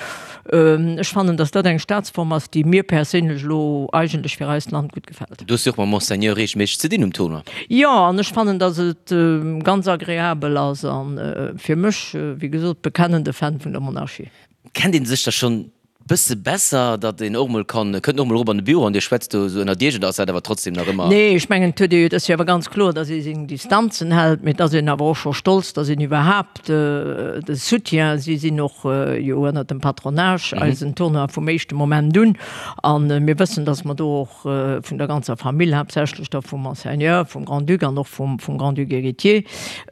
ech fannen, datt dat eng Staatsform ass, déi mir perséinlech elo eigentlech fir eist Land gutt gefält. Du hues jo och mam Monseigneur reegelméisseg ze dinn um Tournoi. Jo, an ech fannen, dass et ganz agreabel ass an fir mech, wéi gesot, bekennende Fan vun der Monarchie. Kennt een sech da schonn bësse besser, datt een och mol kann, kënnt en och mol erop an de Büro an dir schwätzt do esou ënnert iech oder ass dat awer trotzdem nach ëmmer? Nee, ech mengen, et huet ee jo, et ass jo awer ganz kloer, dass ee seng Distanzen hält, mee et ass een awer och scho stolz, dass een iwwerhaapt de Soutien, si sinn och jo ënnert dem Patronage eisen Tournoi vum éischte Moment un an mir wëssen, dass mer do och vun der ganzer Famill, haaptsächlech da vum Monseigneur, vum Grand-Duc an och vum Grand-Duc héritier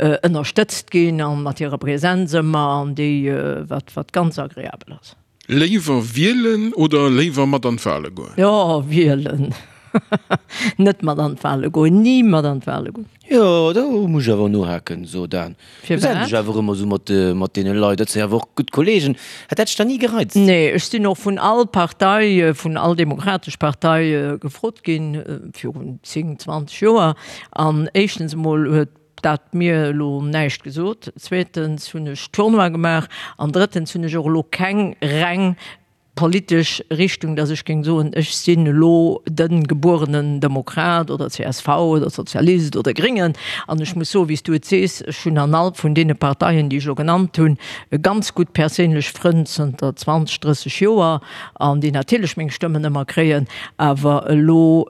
ënnerstëtzt ginn a mat hirer Präsenz ëmmer an déi, wat wat ganz agreabel ass. Léiwer wielen oder léiwer mat an d'Wale goen? Jo, wielen. Net mat an d'Wale goen, ni mat an d'Wale goen. Jo, do muss ech awer nohaken, so Dan. Du Firwat? dech awer ëmmer esou mat, mat deene Leit, dat si awer och gutt Kollegen. Hätt dat dech dann ni gereizt? Nee, ech sinn och vun all Partei, vun all demokratesch Partei gefrot ginn, virun 10, 20 Joer. An éischtens emol huet dat mir elo näischt gesot, zweetens hunn ech Tournoi gemaach an drëttens hunn ech och elo keng reng politesch Richtung, dass ech géing soen, ech sinn elo de gebuerenen Demokrat oder csv oder Sozialist oder Gréngen. An ech muss soen, wéi s du et sees, ech hunn an all vun deene Parteien, déi ech elo genannt hunn, ganz gutt perséinlech Frënn zënter 20, 30 Joer an déi natierlech meng Stëmmen ëmmer kréien. Awer elo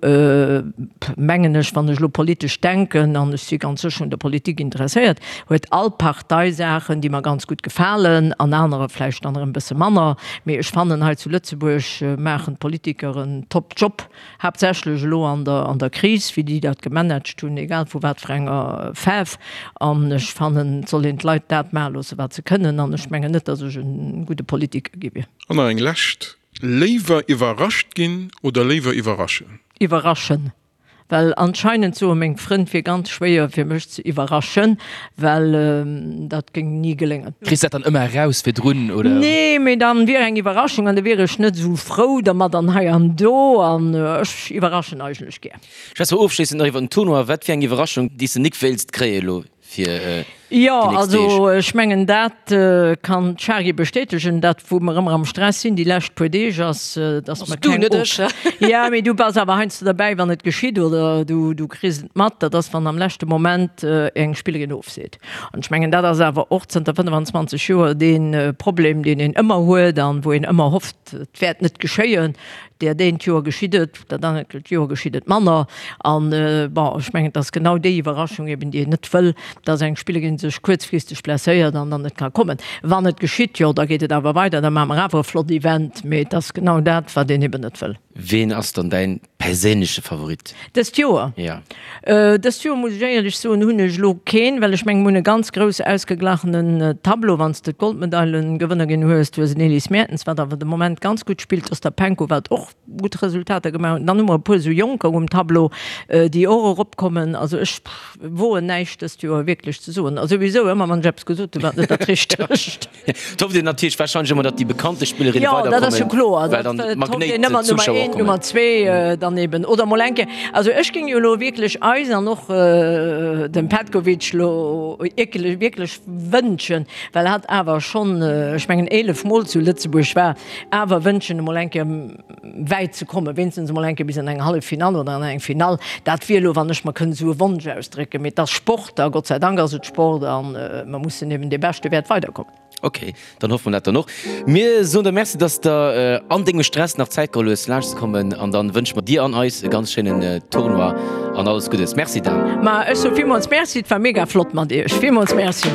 mengen ech, wann ech elo politesch denken, an ech si ganz sécher un der Politik interesséiert, huet all Partei Saachen, déi mer ganz gutt gefalen an anerer vläicht dann erëm e bësse manner. Mee ech fannen, hei zu Lëtzebuerg maachen d'Politiker en top Job, haaptsächlech elo an der an der Kris, wéi déi dat gemanagt hunn, egal vu wat fir enger Faarf. An ech fannen, et soll een d'Leit dat maache loosse wat se kënnen. An ech mengen net, datt ech e gudde Politiker gi wier. An nach eng lescht, Léiwer iwwerrascht ginn oder léiwer iwwerraschen? Iwwerraschen. Well anscheinend soe meng Frënn, et wier ganz schwéier fir mech ze iwwerraschen, well dat géing ni geléngen. Kriss dat dann ëmmer eraus virdrun, oder? Nee, mee dann wier eng Iwwerraschung an da wier ech net esou frou dermat an hei an do an ech iwwerraschen eigentlech gär. Schwätze mer ofschléissend nach iwwer den Tournoi. Wat fir eng Iwwerraschung, déi s de nik wéilst kréie elo fir déi Jo, nächst Deeg? also ech mengen dat kann d'Shari bestätegen, dat wou mer ëmmer am Stress sinn déi lescht puer Deeg ass, dass mer Du, keng net ech. Ja, mee du bass awer heiansdo derbäi wann et geschitt oder du du kriss et mat, dat ass wann am leschte Moment eng Spillerin ofseet. An ech mengen dat ass awer och zënter 25 Joer dee Problem deen een ëmmer huet an wou een ëmmer hofft et wäert net geschéien. Dat eent Joer geschitt et, dat anert Joer geschitt et manner. An, bon, ech mengen, et ass genau déi Iwwerraschung eben, déi een net wëll, dass eng Spillerin sech kuerzfristeg blesséiert an dann net ka kommen. Wann et geschitt, jo, da geet et awer weider, da maache mer awer e flott Event. Mee et ass genau dat, wat een eben net wëll. Ween ass dann däin. perséinleche Favorit? Dëst Joer? Ja. Dëst Joer, muss ech éierlech soen, hunn ech elo keen, well ech mengen, mir hunn e ganz grouss ausgeglachenen Tableau, wann s de d'Goldmedailengewënner ginn hues. Du hues en Elise Mertens, wat awer de Moment ganz gutt spillt, d'Ostapenko, wat och gutt Resultater gemaach huet. Dann hu mer e puer esou Jonker um Tableau, déi och eropkommen. Also ech woen näischt dëst Joer wierklech ze soen. A souwisou, ëmmer wann ech eppes gesot hunn, war et net dat Richtegt. Et hofft een natierlech warscheinlech ëmmer, datt déi bekannte Spillerinne Jo, dat ass jo weiderkommen, kloer. well dann Dat hofft d'Magnéit een ëmmer, Nummer d'Zuschauer eent, kommen. Nummer zwee dann eben. Oder mol eng Kéier, also ech géing jo elo wierklech eis an och dem Petkovic elo wierklech, wierklech wënschen, well hatt awer schonn, ech mengen 11 Mol zu Lëtzebuerg war, awer wënschen emol eng Kéier wäit ze kommen, wéinstens emol eng Kéier bis an eng Halleffinall oder an eng Finall. Dat wier elo, wann ech mer kënnt esou e Wonsch ausdrécken. Mee et ass Sport a Gott sei Dank ass et Sport a mer mussen eben, dee Beschte wäert weiderkommen. Ok, dann hoffe mer dat dann och. Mir soen der Merci, dass de an dengem Stress nach Zäit geholl hues laanscht ze kommen an dann wënsche mer dir an eis e ganz schéinen Tournoi an alles Guddes. Merci Dan. Ma ech soe villmools Merci, et war mega flott mat iech. Villmools Merci.